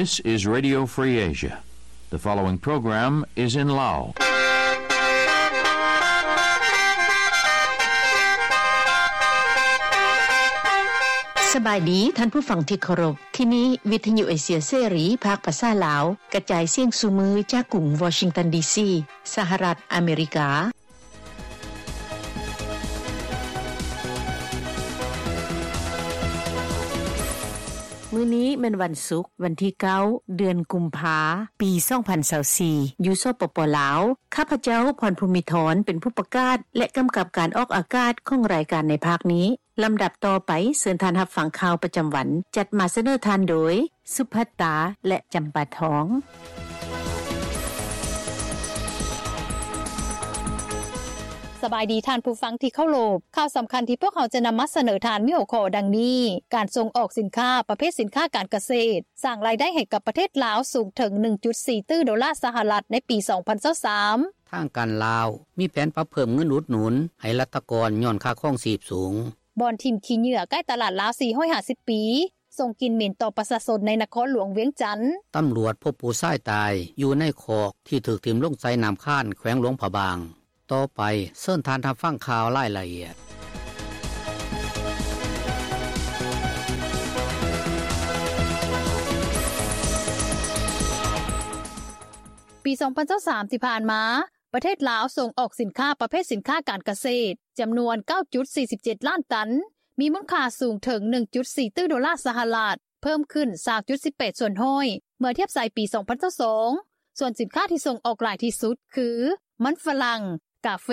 This is Radio Free Asia. The following program is in Lao. ສະບາຍດີທ່ານຜູ້ຟັງທີ່ເຄົາລົບ. ທີ່ນີ້ວິທະຍຸເອເຊຍເສລີ ພາກພາສາລາວ ກະຈາຍສຽງສູ່ມື້ຈາກກຸງວໍຊິງຕັນ ດີຊີ ສະຫະລັດອາເມລິກາ. ມື້ນີ້ແມ່ນວັນສຸກ, ວັນທີເກົ້າ ເດືອນກຸມພາ ປີສອງພັນຊາວສີ່ ຢູ່ ສປປ ລາວ. ຂ້າພະເຈົ້າ ພອນພູມິທອນ ເປັນຜູ້ປະກາດ ແລະ ກຳກັບການອອກອາກາດຂອງລາຍການໃນພາກນີ້. ລຳດັບຕໍ່ໄປ, ເຊີນທ່ານຮັບຟັງຂ່າວປະຈຳວັນ, ຈັດມາສະເໜີທ່ານໂດຍ ສຸພັດຕາ ແລະ ຈຳປາທອງ. ສະບາຍດີທ່ານຜູ້ຟັງທີ່ເຄົາລົບ. ຂ່າວສຳຄັນທີ່ພວກເຮົາຈະນຳມາສະເໜີທ່ານມີຫົວຂໍ້ດັ່ງນີ້: ການສົ່ງອອກສິນຄ້າປະເພດສິນຄ້າການກະເສດ ສ້າງລາຍໄດ້ໃຫ້ກັບປະເທດລາວສູງເຖິງໜຶ່ງຈຸດສີ່ຕື້ໂດລາສະຫະລັດໃນປີສອງພັນຊາວສາມ. ທາງການລາວມີແຜນປັບເພີ່ມເງິນອຸດໜູນໃຫ້ລັດຖະກອນຍ້ອນຄ່າຄອງຊີບສູງ. ບ່ອນຖິ້ມຂີ້ເຫຍື້ອໃກ້ຕະຫຼາດລາວສີ່ຮ້ອຍຫ້າສິບປີ ສົ່ງກິ່ນເໝັນຕໍ່ປະຊາຊົນໃນນະຄອນຫຼວງວຽງຈັນ. ຕຳຫຼວດພົບຜູ້ຊາຍຕາຍຢູ່ໃນຄອກທີ່ຖືກຖິ້ມລົງໃສ່ນ້ຳຄານ ແຂວງຫຼວງພະບາງ. ຕໍ່ໄປ, ເຊີນທ່ານຮັບຟັງຂ່າວລາຍລະອຽດ. ປີສອງພັນຊາວສາມທີ່ຜ່ານມາ, ປະເທດລາວສົ່ງອອກສິນຄ້າປະເພດສິນຄ້າການກະເສດ ຈຳນວນເກົ້າຈຸດສີ່ສິບເຈັດລ້ານຕັນ, ມີມູນຄ່າສູງເຖິງໜຶ່ງຈຸດສີ່ຕື້ໂດລາສະຫະລັດ, ເພີ່ມຂຶ້ນຊາວຈຸດສິບແປດສ່ວນຮ້ອຍ ເມື່ອທຽບໃສ່ປີສອງພັນຊາວສອງ. ສ່ວນສິນຄ້າທີ່ສົ່ງອອກຫຼາຍທີ່ສຸດຄື ມັນຝຣັ່ງ, ກາເຟ,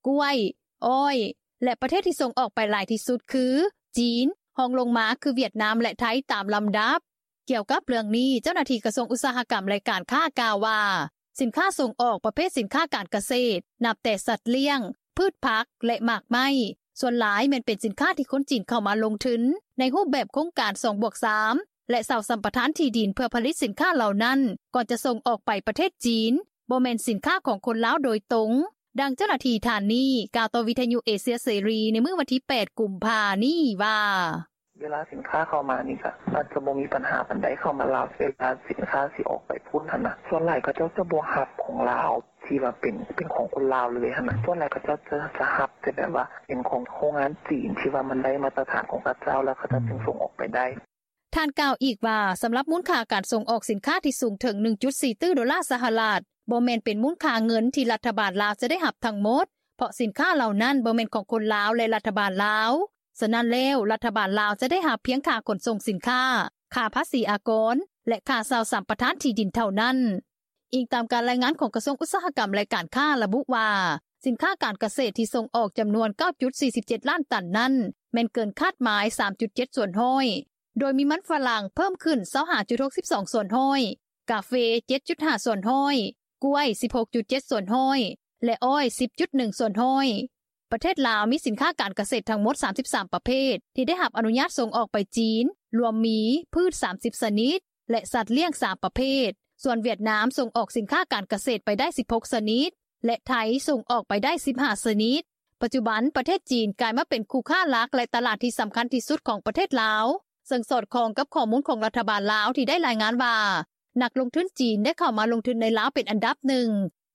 ກ້ວຍ, ອ້ອຍ ແລະ ປະເທດທີ່ສົ່ງອອກໄປຫຼາຍທີ່ສຸດຄື ຈີນ, ຮອງລົງມາຄືຫວຽດນາມ ແລະ ໄທ ຕາມລຳດັບ. ກ່ຽວກັບເລື່ອງນີ້, ເຈົ້າໜ້າທີ່ກະຊວງອຸດສາຫະກຳ ແລະ ການຄ້າກ່າວວ່າ ສິນຄ້າສົ່ງອອກປະເພດສິນຄ້າການກະເສດ ນັບແຕ່ສັດລ້ຽງ, ພືດຜັກ ແລະ ໝາກໄມ້ ສ່ວນຫຼາຍແມ່ນເປັນສິນຄ້າທີ່ຄົນຈີນເຂົ້າມາລົງທຶນໃນຮູບແບບໂຄງການສອງບວກສາມ ແລະ ເຊົ່າສຳປະທານທີ່ດິນເພື່ອຜະລິດສິນຄ້າເຫຼົ່ານັ້ນ ກ່ອນຈະສົ່ງອອກໄປປະເທດຈີນ, ບໍ່ແມ່ນສິນຄ້າຂອງຄົນລາວໂດຍຕົງ. ດັ່ງເຈົ້າໜ້າທີ່ທ່ານນີ້ກ່າວຕໍ່ວິທະຍຸເອເຊຍເສລີໃນມື້ວັນທີແປດ ກຸມພານີ້ວ່າ ເວລາສິນຄ້າເຂົ້າມານີ້ກະອາດຈະບໍ່ມີບັນຫາປານໃດ ເຂົ້າມາລາວ ເວລາສິນຄ້າຊິອອກໄປພຸ້ນຫັ້ນນະ ສ່ວນຫຼາຍເຂົາເຈົ້າຈະບໍ່ຮັບຂອງລາວທີ່ວ່າເປັນ ເປັນຂອງຄົນລາວເລີຍຫັ້ນນະ ສ່ວນຫຼາຍເຂົາເຈົ້າຈະ ຈະຮັບແຕ່ແບບວ່າເປັນຂອງໂຮງງານຈີນທີ່ວ່າມັນໄດ້ມາດຕະຖານຂອງເຂົາເຈົ້າ ແລ້ວເຂົາເຈົ້າຈຶ່ງສົ່ງອອກໄປໄດ້. ທ່ານກ່າວອີກວ່າ ສຳລັບມູນຄ່າການສົ່ງອອກສິນຄ້າທີ່ສູງເຖິງໜຶ່ງຈຸດສີ່ຕື້ໂດລາສະຫະລັດ ບໍ່ແມ່ນເປັນມູນຄ່າເງິນທີ່ລັດຖະບານລາວຈະໄດ້ຮັບທັງໝົດ ເພາະສິນຄ້າເຫຼົ່ານັ້ນບໍ່ແມ່ນຂອງຄົນລາວ ແລະ ລັດຖະບານລາວ. ສະນັ້ນແລ້ວ, ລັດຖະບານລາວຈະໄດ້ຮັບພຽງຄ່າຂົນສົ່ງສິນຄ້າ, ຄ່າພາສີອາກອນ ແລະ ຄ່າເຊົ່າສຳປະທານທີ່ດິນເທົ່ານັ້ນ. ອີງຕາມການລາຍງານຂອງກະຊວງອຸດສາຫະກຳ ແລະ ການຄ້າລະບຸວ່າ, ສິນຄ້າການກະເສດທີ່ສົ່ງອອກຈຳນວນເກົ້າຈຸດສີ່ສິບເຈັດລ້ານຕັນນັ້ນ ແມ່ນເກີນຄາດໝາຍສາມຈຸດເຈັດສ່ວນຮ້ອຍ, ໂດຍມີມັນຝຣັ່ງເພີ່ມຂຶ້ນຊາວຫ້າຈຸດຫົກສິບສອງສ່ວນຮ້ອຍ, ກາເຟເຈັດຈຸດຫ້າສ່ວນຮ້ອຍ, ກ້ວຍສິບຫົກຈຸດເຈັດສ່ວນຮ້ອຍ ແລະ ອ້ອຍສິບຈຸດໜຶ່ງສ່ວນຮ້ອຍ. ປະເທດລາວມີສິນຄ້າການກະເສດທັງໝົດສາມສິບສາມປະເພດ ທີ່ໄດ້ຮັບອະນຸຍາດສົ່ງອອກໄປຈີນ, ລວມມີພືດສາມສິບຊະນິດ ແລະ ສັດລ້ຽງສາມປະເພດ. ສ່ວນຫວຽດນາມສົ່ງອອກສິນຄ້າການກະເສດໄປໄດ້ສິບຫົກຊະນິດ ແລະ ໄທສົ່ງອອກໄປໄດ້ສິບຫ້າຊະນິດ. ປັດຈຸບັນ, ປະເທດຈີນກາຍມາເປັນຄູ່ຄ້າຫຼັກ ແລະ ຕະຫຼາດທີ່ສຳຄັນທີ່ສຸດຂອງປະເທດລາວ, ເຊິ່ງສອດຄ່ອງກັບຂໍ້ມູນຂອງລັດຖະບານລາວທີ່ໄດ້ລາຍງານວ່າ ນັກລົງທຶນຈີນໄດ້ເຂົ້າມາລົງທຶນໃນລາວເປັນອັນດັບໜຶ່ງ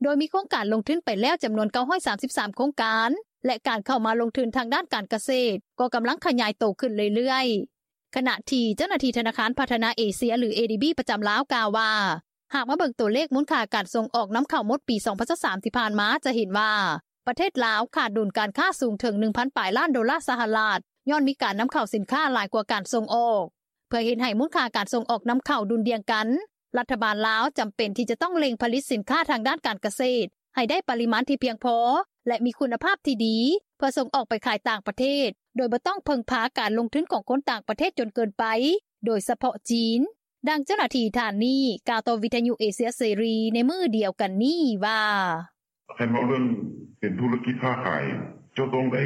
ໂດຍມີໂຄງການລົງທຶນໄປແລ້ວຈຳນວນເກົ້າຮ້ອຍສາມສິບສາມໂຄງການ ແລະ ການເຂົ້າມາລົງທຶນທາງດ້ານການກະເສດກໍກຳລັງຂະຫຍາຍໂຕຂຶ້ນເລື້ອຍໆ. ຂະນະທີ່ເຈົ້າໜ້າທີ່ທະນາຄານພັດທະນາເອເຊຍ ຫຼື ເອດີບີ ປະຈຳລາວກ່າວວ່າ ຫາກມາເບິ່ງຕົວເລກມູນຄ່າການສົ່ງອອກນຳເຂົ້າໝົດປີສອງພັນຊາວສາມທີ່ຜ່ານມາ ຈະເຫັນວ່າປະເທດລາວຂາດດຸນການຄ້າສູງເຖິງໜຶ່ງພັນປາຍລ້ານໂດລາສະຫະລັດ ຍ້ອນມີການນຳເຂົ້າສິນຄ້າຫຼາຍກວ່າການສົ່ງອອກ. ເພື່ອເຮັດໃຫ້ມູນຄ່າການສົ່ງອອກນຳເຂົ້າດຸ່ນດ່ຽງກັນ, ລັດຖະບານລາວຈຳເປັນທີ່ຈະຕ້ອງເລັ່ງຜະລິດສິນຄ້າທາງດ້ານການກະເສດໃຫ້ໄດ້ປະລິມານທີ່ພຽງພໍ ແລະ ມີຄຸນນະພາບທີ່ດີ ເພື່ອສົ່ງອອກໄປຂາຍຕ່າງປະເທດ ໂດຍບໍ່ຕ້ອງເພິ່ງພາການລົງທຶນຂອງຄົນຕ່າງປະເທດຈົນເກີນໄປ, ໂດຍສະເພາະຈີນ. ດັ່ງເຈົ້າໜ້າທີ່ທ່ານນີ້ກ່າວຕໍ່ວິທະຍຸເອເຊຍເສລີໃນມື້ດຽວກັນນີ້ວ່າ ຄັນເວົ້າເລື່ອງເປັນທຸລະກິດຄ້າຂາຍ ເຈົ້າຕ້ອງໄດ້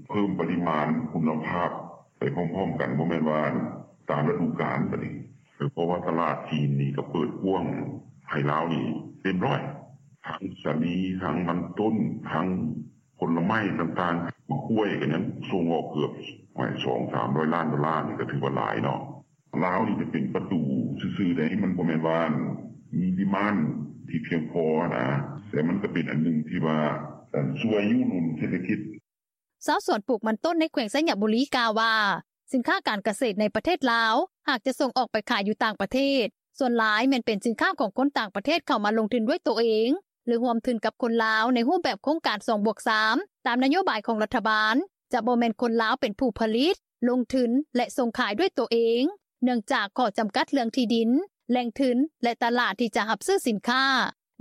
ເພີ່ມປະລິມານຄຸນນະພາບໄປພ້ອມໆກັນ, ບໍ່ແມ່ນວ່າຕາມລະດູການບາດນີ້, ເພາະວ່າຕະຫຼາດຈີນນີ້ກໍເປີດກວ້າງໃຫ້ລາວນີ້ເຕັມຮ້ອຍ, ທັງສາລີ, ທັງມັນຕົ້ນ, ທັງຜົນລະໄມ້ຕ່າງໆ, ໝາກກ້ວຍກໍຍັງສົ່ງອອກເກືອບສອງສາມຮ້ອຍລ້ານໂດລາ, ນີ້ກໍຖືວ່າຫຼາຍເນາະ. ລາວນີ້ຈະເປັນປະຕູຊື່ໆໃດ໋ ມັນບໍ່ແມ່ນວ່າມີດີມານທີ່ພຽງພໍນະ ແຕ່ມັນກໍເປັນອັນໜຶ່ງທີ່ວ່າຊ່ວຍຍູ້ໜູນເສດຖະກິດ.” ຊາວສວນປູກມັນຕົ້ນໃນແຂວງໄຊຍະບູລີກ່າວວ່າ ສິນຄ້າການກະເສດໃນປະເທດລາວ ຫາກຈະສົ່ງອອກໄປຂາຍຢູ່ຕ່າງປະເທດ ສ່ວນຫຼາຍແມ່ນເປັນສິນຄ້າຂອງຄົນຕ່າງປະເທດເຂົ້າມາລົງທຶນດ້ວຍໂຕເອງ ຫຼືຮ່ວມທຶນກັບຄົນລາວໃນຮູບແບບໂຄງການສອງບວກສາມ ຕາມນະໂຍບາຍຂອງລັດຖະບານ ຈະບໍ່ແມ່ນຄົນລາວເປັນຜູ້ຜະລິດ, ລົງທຶນ ແລະ ສົ່ງຂາຍດ້ວຍໂຕເອງ ເນື່ອງຈາກຂໍ້ຈຳກັດເລື່ອງທີ່ດິນ, ແຫຼ່ງທຶນ ແລະ ຕະຫຼາດທີ່ຈະຮັບຊື້ສິນຄ້າ.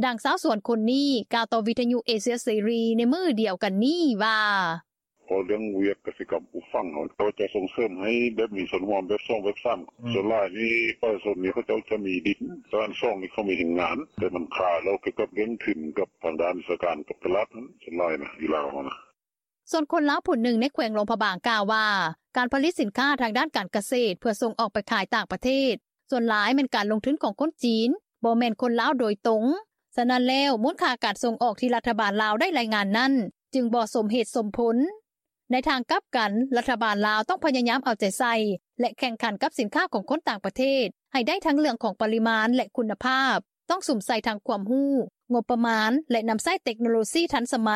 ດັ່ງຊາວສວນຄົນນີ້ກ່າວຕໍ່ວິທຍຸເອເຊຍເສລີໃນມື້ດຽວກັນນີ້ວ່າ: “ເວົ້າເລື່ອງວຽກກະສິກຳປູກຝັງເຮົາ ເຂົາຈະສົ່ງເສີມໃຫ້ແບບມີສ່ວນຮ່ວມແບບສອງແບບສາມ ສ່ວນຫຼາຍນີ້ປະຊາຊົນນີ້ເຂົາເຈົ້າຈະມີດິນ ສ່ວນອັນສອງນີ້ເຂົາມີແຮງງານ ແຕ່ມັນຄາແລ້ວກ່ຽວກັບເລື່ອງທຶນກັບທາງດ້ານວິຊາການກັບຕະຫຼາດນັ້ນ ສ່ວນຫຼາຍນະຢູ່ລາວເຮົານະ.” ສ່ວນຄົນລາວຜູ້ໜຶ່ງໃນແຂວງຫຼວງພະບາງກ່າວວ່າ ການຜະລິດສິນຄ້າທາງດ້ານການກະເສດ ເພື່ອສົ່ງອອກໄປຂາຍຕ່າງປະເທດ ສ່ວນຫຼາຍແມ່ນການລົງທຶນຂອງຄົນຈີນ ບໍ່ແມ່ນຄົນລາວໂດຍຕົງ. ສະນັ້ນແລ້ວ ມູນຄ່າການສົ່ງອອກທີ່ລັດຖະບານລາວໄດ້ລາຍງານນັ້ນ ຈຶ່ງບໍ່ສົມເຫດສົມຜົນ. ໃນທາງກັບກັນ ລັດຖະບານລາວຕ້ອງພະຍາຍາມເອົາໃຈໃສ່ ແລະ ແຂ່ງຂັນກັບສິນຄ້າຂອງຄົນຕ່າງປະເທດ ໃຫ້ໄດ້ທັງເລື່ອງຂອງປະລິມານ ແລະ ຄຸນນະພາບ, ຕ້ອງສຸມໃສ່ທັງຄວາມຮູ້, ງົບປະມານ ແລະ ນຳໃຊ້ເຕັກໂນໂລຊີທັນສະໄໝ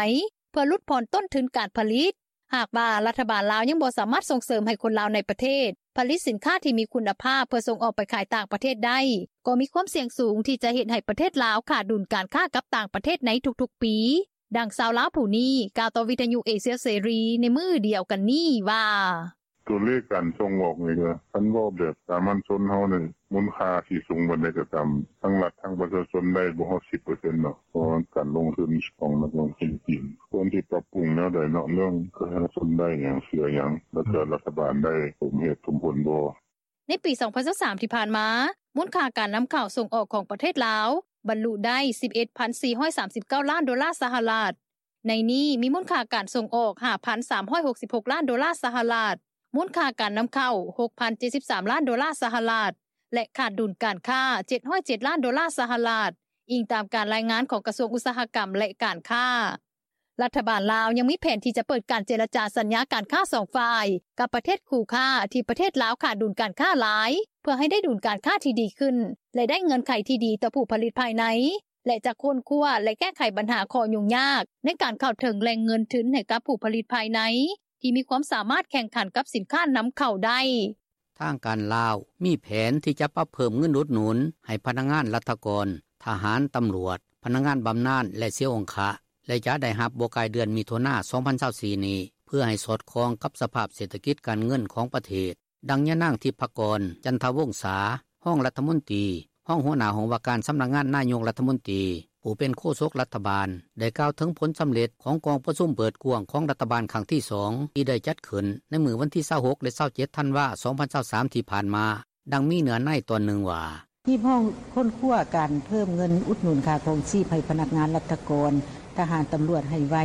ເພື່ອຫຼຸດຜ່ອນຕົ້ນທຶນການຜະລິດ. ຫາກວ່າລັດຖະບານລາວຍັງບໍ່ສາມາດສົ່ງເສີມໃຫ້ຄົນລາວໃນປະເທດ ຜະລິດສິນຄ້າທີ່ມີຄຸນນະພາບ ເພື່ອສົ່ງອອກໄປຂາຍຕ່າງປະເທດໄດ້ ກໍມີຄວາມສ່ຽງສູງທີ່ຈະເຮັດໃຫ້ປະເທດລາວຂາດດຸນການຄ້າກັບຕ່າງປະເທດໃນທຸກໆປີ. ດັ່ງຊາວລາວຜູ້ນີ້ກ່າວຕໍ່ວິທຍຸເອເຊຍເສລີໃນມື້ດຽວກັນນີ້ວ່າ: “ຕົວເລກການສົ່ງອອກນີ້ກະ ຄັນເວົ້າແບບສາມັນຊົນເຮົານີ້ ມູນຄ່າຊິສູງປານໃດກໍຕາມ ທັງລັດທັງປະຊາຊົນໄດ້ບໍ່ຮອດສິບເປີເຊັນດອກ ເພາະວ່າການລົງທຶນຂອງນັກລົງທຶນຈີນ ຄວນຊິປັບປຸງແນວໃດເນາະ ເລື່ອງປະຊາຊົນໄດ້ຫຍັງ ເສຍຫຍັງ ແລ້ວກໍລັດຖະບານໄດ້ສົມເຫດສົມຜົນບໍ່.” ໃນປີສອງພັນຊາວສາມທີ່ຜ່ານມາ ມູນຄ່າການນຳເຂົ້າສົ່ງອອກຂອງປະເທດລາວ ບັນລຸໄດ້ສິບເອັດພັນສີ່ຮ້ອຍສາມສິບເກົ້າລ້ານໂດລາສະຫະລັດ. ໃນນີ້ມີມູນຄ່າການສົ່ງອອກຫ້າພັນສາມຮ້ອຍຫົກສິບຫົກລ້ານໂດລາສະຫະລັດ, ມູນຄ່າການນຳເຂົ້າຫົກພັນເຈັດສິບສາມລ້ານໂດລາສະຫະລັດ ແລະ ຂາດດຸນການຄ້າເຈັດຮ້ອຍເຈັດລ້ານໂດລາສະຫະລັດ, ອີງຕາມການລາຍງານຂອງກະຊວງອຸດສາຫະກຳ ແລະ ການຄ້າ. ລັດຖະບານລາວຍັງມີແຜນທີ່ຈະເປີດການເຈລະຈາສັນຍາການຄ້າສອງຝ່າຍ ກັບປະເທດຄູ່ຄ້າທີ່ປະເທດລາວຂາດດຸນການຄ້າຫຼາຍ ເພື່ອໃຫ້ໄດ້ດຸນການຄ້າທີ່ດີຂຶ້ນ ແລະ ໄດ້ເງື່ອນໄຂທີ່ດີຕໍ່ຜູ້ຜະລິດພາຍໃນ ແລະ ຈະຄົ້ນຄວ້າ ແລະ ແກ້ໄຂບັນຫາຂໍ້ຫຍຸ້ງຍາກໃນການເຂົ້າເຖິງແຫຼ່ງເງິນທຶນໃຫ້ກັບຜູ້ຜະລິດພາຍໃນ ທີ່ມີຄວາມສາມາດແຂ່ງຂັນກັບສິນຄ້ານຳເຂົ້າໄດ້. ທາງການລາວມີແຜນທີ່ຈະປັບເພີ່ມເງິນອຸດໜູນໃຫ້ພະນັກງານລັດຖະກອນ, ທະຫານ, ຕຳຫຼວດ, ພະນັກງານບຳນານ ແລະ ເສຍອົງຄະ ແລະ ຈະໄດ້ຮັບບໍ່ກາຍເດືອນມິຖຸນາ ສອງພັນຊາວສີ່ນີ້ ເພື່ອໃຫ້ສອດຄ່ອງກັບສະພາບເສດຖະກິດການເງິນຂອງປະເທດ. ດັ່ງຍານາງ ທິບພະກອນ ຈັນທະວົງສາ ຮອງລັດຖະມົນຕີ, ຮອງຫົວໜ້າຫ້ອງວ່າການສຳນັກງານນາຍົກລັດຖະມົນຕີ, ຜູ້ເປັນໂຄສົກລັດຖະບານ ໄດ້ກ່າວເຖິງຜົນສຳເລັດຂອງກອງປະຊຸມເປີດກວ້າງຂອງລັດຖະບານຄັ້ງທີສອງ ທີ່ໄດ້ຈັດຂຶ້ນໃນມື້ວັນທີຊາວຫົກ ແລະ ຊາວເຈັດ ທັນວາ ສອງພັນຊາວສາມ ທີ່ຜ່ານມາ. ດັ່ງມີເນື້ອໃນຕອນໜຶ່ງວ່າ: “ຮີບຮ້ອງຄົ້ນຄວ້າການເພີ່ມເງິນອຸດໜູນຄ່າຄອງຊີບໃຫ້ພະນັກງານລັດຖະກອນ, ທະຫານ, ຕຳຫຼວດໃຫ້ໄວ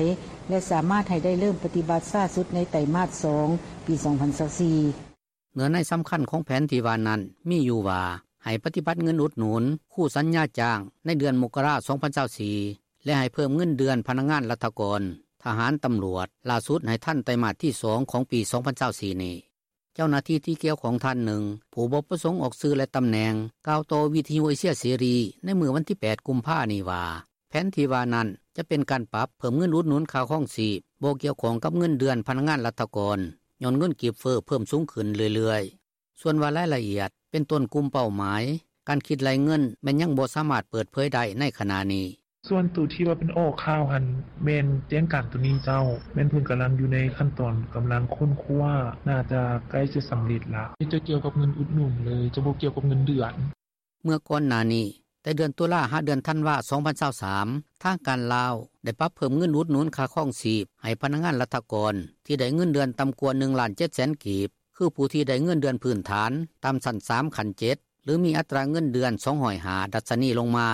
ແລະ ສາມາດໃຫ້ໄດ້ເລີ່ມປະຕິບັດຊ້າສຸດໃນໄຕມາດສອງ ປີສອງພັນຊາວສີ່.” ເນື້ອໃນສຳຄັນຂອງແຜນທີ່ວ່ານັ້ນມີຢູ່ວ່າ ໃຫ້ປະຕິບັດເງິນອຸດໜູນຄູ່ສັນຍາຈ້າງໃນເດືອນມົກກະລາ ສອງພັນຊາວສີ່ ແລະ ໃຫ້ເພີ່ມເງິນເດືອນພະນັກງານລັດຖະກອນ, ທະຫານ, ຕຳຫຼວດ ຫຼ້າສຸດໃຫ້ທັນໄຕມາດທີສອງຂອງປີສອງພັນຊາວສີ່ນີ້. ເຈົ້າໜ້າທີ່ທີ່ກ່ຽວຂ້ອງທ່ານໜຶ່ງ ຜູ້ບໍ່ປະສົງອອກຊື່ ແລະ ຕຳແໜ່ງ ກ່າວຕໍ່ວິທຍຸເອເຊຍເສລີໃນມື້ວັນທີແປດ ກຸມພານີ້ວ່າ ແຜນທີ່ວ່ານັ້ນຈະເປັນການປັບເພີ່ມເງິນອຸດໜູນຄ່າຄອງຊີບ ບໍ່ກ່ຽວຂ້ອງກັບເງິນເດືອນພະນັກງານລັດຖະກອນ ຍ້ອນເງິນກີບເຟີ້ເພີ່ມສູງຂຶ້ນເລື້ອຍໆ. ສ່ວນວ່າລາຍລະອຽດ ເປັນຕົ້ນກຸ່ມເປົ້າໝາຍ ການຄິດໄລ່ເງິນ ແມ່ນຍັງບໍ່ສາມາດເປີດເຜີຍໄດ້ໃນຂະນະນີ້. “ສ່ວນໂຕທີ່ວ່າເປັນອອກຂ່າວຫັ້ນ ແມ່ນແຈ້ງການໂຕນີ້ເຈົ້າ ແມ່ນເພິ່ນກຳລັງຢູ່ໃນຂັ້ນຕອນກຳລັງຄົ້ນຄວ້າ ໜ້າຈະໃກ້ຈະສຳເລັດລະ ຈະກ່ຽວກັບເງິນອຸດໜູນເລີຍ ຈະບໍ່ກ່ຽວກັບເງິນເດືອນ.” ເມື່ອກ່ອນໜ້ານີ້ ແຕ່ເດືອນຕຸລາ ຫາເດືອນທັນວາ ສອງພັນຊາວສາມ ທາງການລາວໄດ້ປັບເພີ່ມເງິນອຸດໜູນຄ່າຄອງຊີບໃຫ້ພະນັກງານລັດຖະກອນທີ່ໄດ້ເງິນເດືອນຕ່ຳກວ່າໜຶ່ງລ້ານເຈັດແສນກີບ ຄືຜູ້ທີ່ໄດ້ເງິນເດືອນພື້ນຖານຕ່ຳຊັ້ນສາມ ຂັ້ນເຈັດ ຫຼື ມີອັດຕາເງິນເດືອນສອງຮ້ອຍຫ້າ ດັດຊະນີລົງມາ,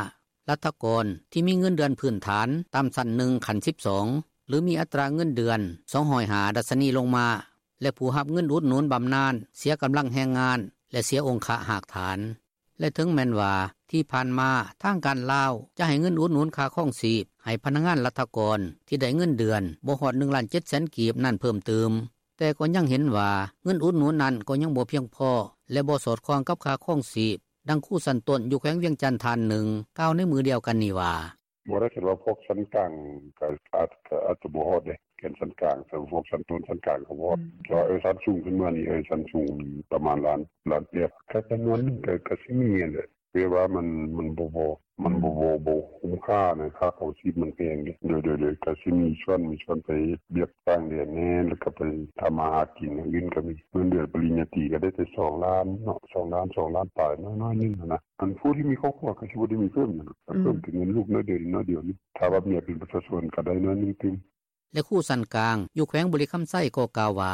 ລັດຖະກອນທີ່ມີເງິນເດືອນພື້ນຖານຕ່ຳຊັ້ນໜຶ່ງ ຂັ້ນສິບສອງ ຫຼື ມີອັດຕາເງິນເດືອນສອງຮ້ອຍຫ້າ ດັດຊະນີລົງມາ ແລະ ຜູ້ຮັບເງິນອຸດໜູນບຳນານເສຍກຳລັງແຮງງານ ແລະ ເສຍອົງຄະຮາກຖານ. ແລະ ເຖິງແມ່ນວ່າທີ່ຜ່ານມາທາງການລາວຈະໃຫ້ເງິນອຸດໜູນຄ່າຄອງຊີບໃຫ້ພະນັກງານລັດຖະກອນທີ່ໄດ້ເງິນເດືອນບໍ່ຮອດໜຶ່ງລ້ານເຈັດແສນກີບນັ້ນເພີ່ມຕື່ມ, ແຕ່ກໍຍັງເຫັນວ່າເງິນອຸດໜູນນັ້ນກໍຍັງບໍ່ພຽງພໍ ແລະບໍ່ສອດຄ່ອງກັບຄ່າຄອງຊີບ. ດັ່ງຄູຊັ້ນຕົ້ນຢູ່ແຂວງວຽງຈັນທ່ານໜຶ່ງ ກ່າວໃນມື້ດຽວກັນນີ້ວ່າ: “ບໍ່ໄດ້ ຄັນວ່າພວກຊັ້ນກາງ ກໍອາດຈະບໍ່ຮອດເດ້ ແກ່ນຊັ້ນກາງ ແຕ່ພວກຊັ້ນຕົ້ນຊັ້ນກາງກໍບໍ່ຮອດ ແຕ່ວ່າຊັ້ນສູງຂຶ້ນມານີ້ ຊັ້ນສູງປະມານລ້ານ ລ້ານປາຍ ກໍຈຳນວນໜຶ່ງ ກໍຊິມີຫັ້ນແຫຼະ ແຕ່ວ່າມັນບໍ່ພໍ ມັນບໍ່ ບໍ່ຄຸ້ມຄ່າ ຄ່າຄອງຊີບມັນແພງເດ້ ໂດຍໆ ກໍຊິມີສ່ວນ ມີສ່ວນໄປເຮັດວຽກຕ່າງແດນແດ່ ແລ້ວກໍໄປທຳມາຫາກິນ ອັນອື່ນກໍມີ ເງິນເດືອນປະລິນຍາຕີ ກໍໄດ້ແຕ່ສອງລ້ານເນາະ ສອງລ້ານ ສອງລ້ານປາຍ ນ້ອຍໆໜຶ່ງຫັ້ນນະ ອັນຜູ້ທີ່ມີຄອບຄົວກໍຊິບໍ່ໄດ້ມີເພີ່ມຫຍັງ ກໍເພີ່ມແຕ່ເງິນລູກໜ້ອຍດຽວ ນິດໜ້ອຍດຽວ ຖ້າວ່າເມຍເປັນປະຊາຊົນກໍໄດ້ໜ້ອຍໜຶ່ງຕື່ມ.” ແລະຄູຊັ້ນກາງຢູ່ແຂວງບໍລິຄຳໄຊກໍກ່າວວ່າ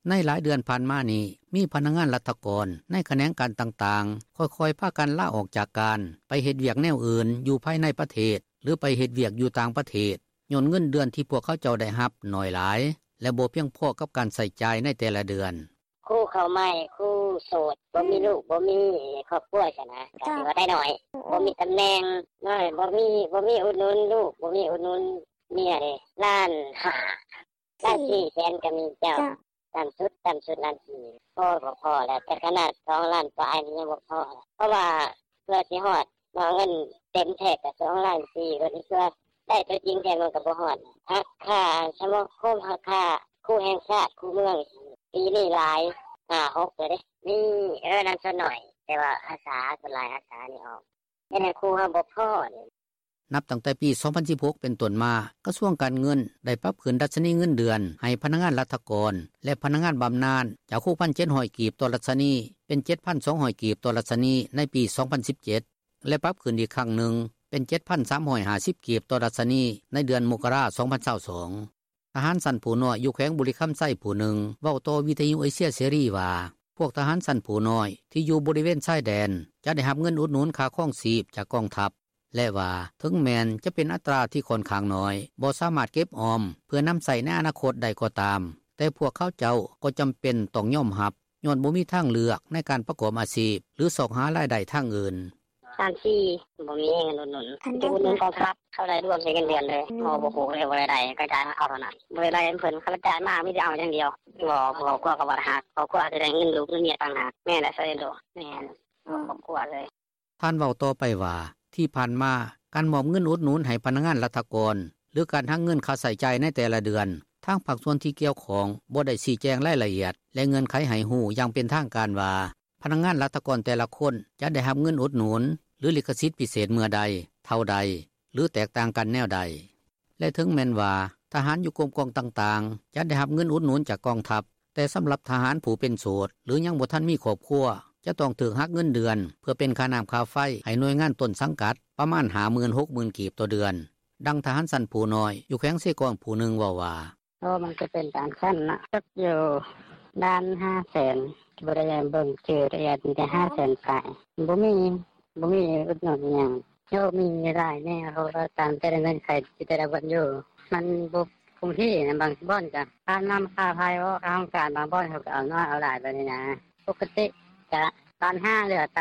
ໃນຫຼາຍເດືອນຜ່ານມານີ້ ມີພະນັກງານລັດຖະກອນໃນຂະແໜງການຕ່າງໆ ຄ່ອຍໆພາກັນລາອອກຈາກການ ໄປເຮັດວຽກແນວອື່ນຢູ່ພາຍໃນປະເທດ ຫຼືໄປເຮັດວຽກຢູ່ຕ່າງປະເທດ ຍ້ອນເງິນເດືອນທີ່ພວກເຂົາເຈົ້າໄດ້ຮັບໜ້ອຍຫຼາຍ ແລະບໍ່ພຽງພໍກັບການໃຊ້ຈ່າຍໃນແຕ່ລະເດືອນ. “ຄູເຂົ້າໃໝ່ ຄູໂສດ ບໍ່ມີລູກ ບໍ່ມີຄອບຄົວຊັ້ນນະ ກໍຖືວ່າໄດ້ໜ້ອຍ ບໍ່ມີຕຳແໜ່ງ ບໍ່ມີ ບໍ່ມີອຸດໜູນລູກ ບໍ່ມີອຸດໜູນເມຍເດ້ ລ້ານຫ້າ ລ້ານສີ່ແສນກໍມີເຈົ້າ ຕໍ່າສຸດ ຕໍ່າສຸດລ້ານສີ່ ພໍ ພໍແລ້ວ ແຕ່ຂະໜາດສອງລ້ານປາຍນີ້ຍັງບໍ່ພໍ ເພາະວ່າເພື່ອຊິຮອດເນາະ ເງິນເຕັມແທ້ກໍສອງລ້ານສີ່ ກໍຖືວ່າໄດ້ຕົວຈິງແທ້ມັນກໍບໍ່ຮອດ ຫັກຄ່າສະມາຄົມ ຫັກຄ່າຄູແຫ່ງຊາດ ຄູເມືອງ ປີນີ້ຫຼາຍ ຫ້າຫົກເທື່ອເດ້ ມີ ເອີ ນັ້ນສ່ວນໜ້ອຍ ແຕ່ວ່າອາສາ ສ່ວນຫຼາຍອາສານີ້ອອກ ເຮັດໃຫ້ຄູເຮົາບໍ່ພໍເດ້.” ນັບຕັ້ງແຕ່ປີສອງພັນສິບຫົກເປັນຕົ້ນມາ ກະຊວງການເງິນໄດ້ປັບຂຶ້ນດັດຊະນີເງິນເດືອນໃຫ້ພະນັກງານລັດຖະກອນ ແລະພະນັກງານບຳນານ ຈາກ ຫົກພັນເຈັດຮ້ອຍກີບຕໍ່ດັດຊະນີ ເປັນ ເຈັດພັນສອງຮ້ອຍກີບຕໍ່ດັດຊະນີໃນປີສອງພັນສິບເຈັດ ແລະປັບຂຶ້ນອີກຄັ້ງໜຶ່ງເປັນ ເຈັດພັນສາມຮ້ອຍຫ້າສິບກີບຕໍ່ດັດຊະນີໃນເດືອນມົກກະລາ ສອງພັນຊາວສອງ. ທະຫານຊັ້ນຜູ້ນ້ອຍຢູ່ແຂວງບໍລິຄຳໄຊຜູ້ໜຶ່ງ ເວົ້າຕໍ່ວິທຍຸເອເຊຍເສລີວ່າ ພວກທະຫານຊັ້ນຜູ້ນ້ອຍທີ່ຢູ່ບໍລິເວນຊາຍແດນ ຈະໄດ້ຮັບເງິນອຸດໜູນຄ່າຄອງຊີບຈາກກອງທັບ ແລະວ່າ ເຖິງແມ່ນຈະເປັນອັດຕາທີ່ຂ້ອນຂ້າງໜ້ອຍ ບໍ່ສາມາດເກັບອອມເພື່ອນຳໃຊ້ໃນອະນາຄົດໄດ້ກໍຕາມ ແຕ່ພວກເຂົາເຈົ້າກໍຈຳເປັນຕ້ອງຍອມຮັບ ຍ້ອນບໍ່ມີທາງເລືອກໃນການປະກອບອາຊີບ ຫຼືຊອກຫາລາຍໄດ້ທາງອື່ນ. “ລ້ານສີ່ ບໍ່ມີເງິນອຸດໜູນ ຈະອຸດໜູນກອງທັບ ເຂົາໄດ້ລວມໃສ່ເງິນເດືອນເລີຍ ບໍ່ຮູ້ເລີຍວ່າລາຍໄດ້ ກະຈ່າຍມາເອົາເທົ່ານັ້ນ ບໍ່ໄດ້ໄດ້ນຳເພິ່ນ ຄັນວ່າຈ່າຍມາມີແຕ່ເອົາຢ່າງດຽວ ບໍ່ ຄອບຄົວກໍບໍ່ໄດ້ຮັກ ຄອບຄົວຊິໄດ້ເງິນລູກເງິນເມຍຕ່າງຫາກ ແມ່ນແຫຼະ ຊະເອໂດ ແມ່ນ ຄອບຄົວເລີຍ.” ທ່ານເວົ້າຕໍ່ໄປວ່າ ທີ່ຜ່ານມາ ການມອບເງິນອຸດໜູນໃຫ້ພະນັກງານລັດຖະກອນ ຫຼືການຫັກເງິນຄ່າໃຊ້ຈ່າຍໃນແຕ່ລະເດືອນ ທາງພາກສ່ວນທີ່ກ່ຽວຂ້ອງບໍ່ໄດ້ຊີ້ແຈງລາຍລະອຽດ ແລະເງື່ອນໄຂໃຫ້ຮູ້ຢ່າງເປັນທາງການວ່າ ພະນັກງານລັດຖະກອນແຕ່ລະຄົນຈະໄດ້ຮັບເງິນອຸດໜູນ ຫຼືລິຂະສິດພິເສດເມື່ອໃດ, ເທົ່າໃດ ຫຼືແຕກຕ່າງກັນແນວໃດ. ແລະເຖິງແມ່ນວ່າ ທະຫານຢູ່ກົມກອງຕ່າງໆ ຈະໄດ້ຮັບເງິນອຸດໜູນຈາກກອງທັບ ແຕ່ສຳລັບທະຫານຜູ້ເປັນໂສດ ຫຼືຍັງບໍ່ທັນມີຄອບຄົວ ຈະຕ້ອງຖືກຫັກເງິນເດືອນ ເພື່ອເປັນຄ່ານ້ຳຄ່າໄຟໃຫ້ໜ່ວຍງານຕົ້ນສັງກັດ ປະມານຫ້າໝື່ນ ຫົກໝື່ນກີບຕໍ່ເດືອນ. ດັ່ງທະຫານຊັ້ນຜູ້ນ້ອຍ ຢູ່ແຂວງເຊກອງຜູ້ໜຶ່ງເວົ້າວ່າ: “ໂອ້ ມັນກໍເປັນຕາມຊັ້ນເນາະ ຕົກຢູ່ລ້ານຫ້າແສນ ບໍ່ໄດ້ເບິ່ງຊື່ລະອຽດ ມີແຕ່ຫ້າແສນປາຍ ບໍ່ມີ ບໍ່ມີອຸດໜູນຫຍັງ ໂອ້ ມີຫຼາຍແນວ ເພາະວ່າຕາມແຕ່ລະເງື່ອນໄຂ ແຕ່ລະບ່ອນຢູ່ ມັນບໍ່ຄົງທີ່ນະ ບາງບ່ອນກໍຄ່ານ້ຳຄ່າໄຟ ເວົ້າຄ່າຫ້ອງການ ບາງບ່ອນເຂົາກໍເອົາໜ້ອຍເອົາຫຼາຍແບບນີ້ນະ ປົກກະຕິກະລ້ານຫ້າ ເຫຼືອ ຖ້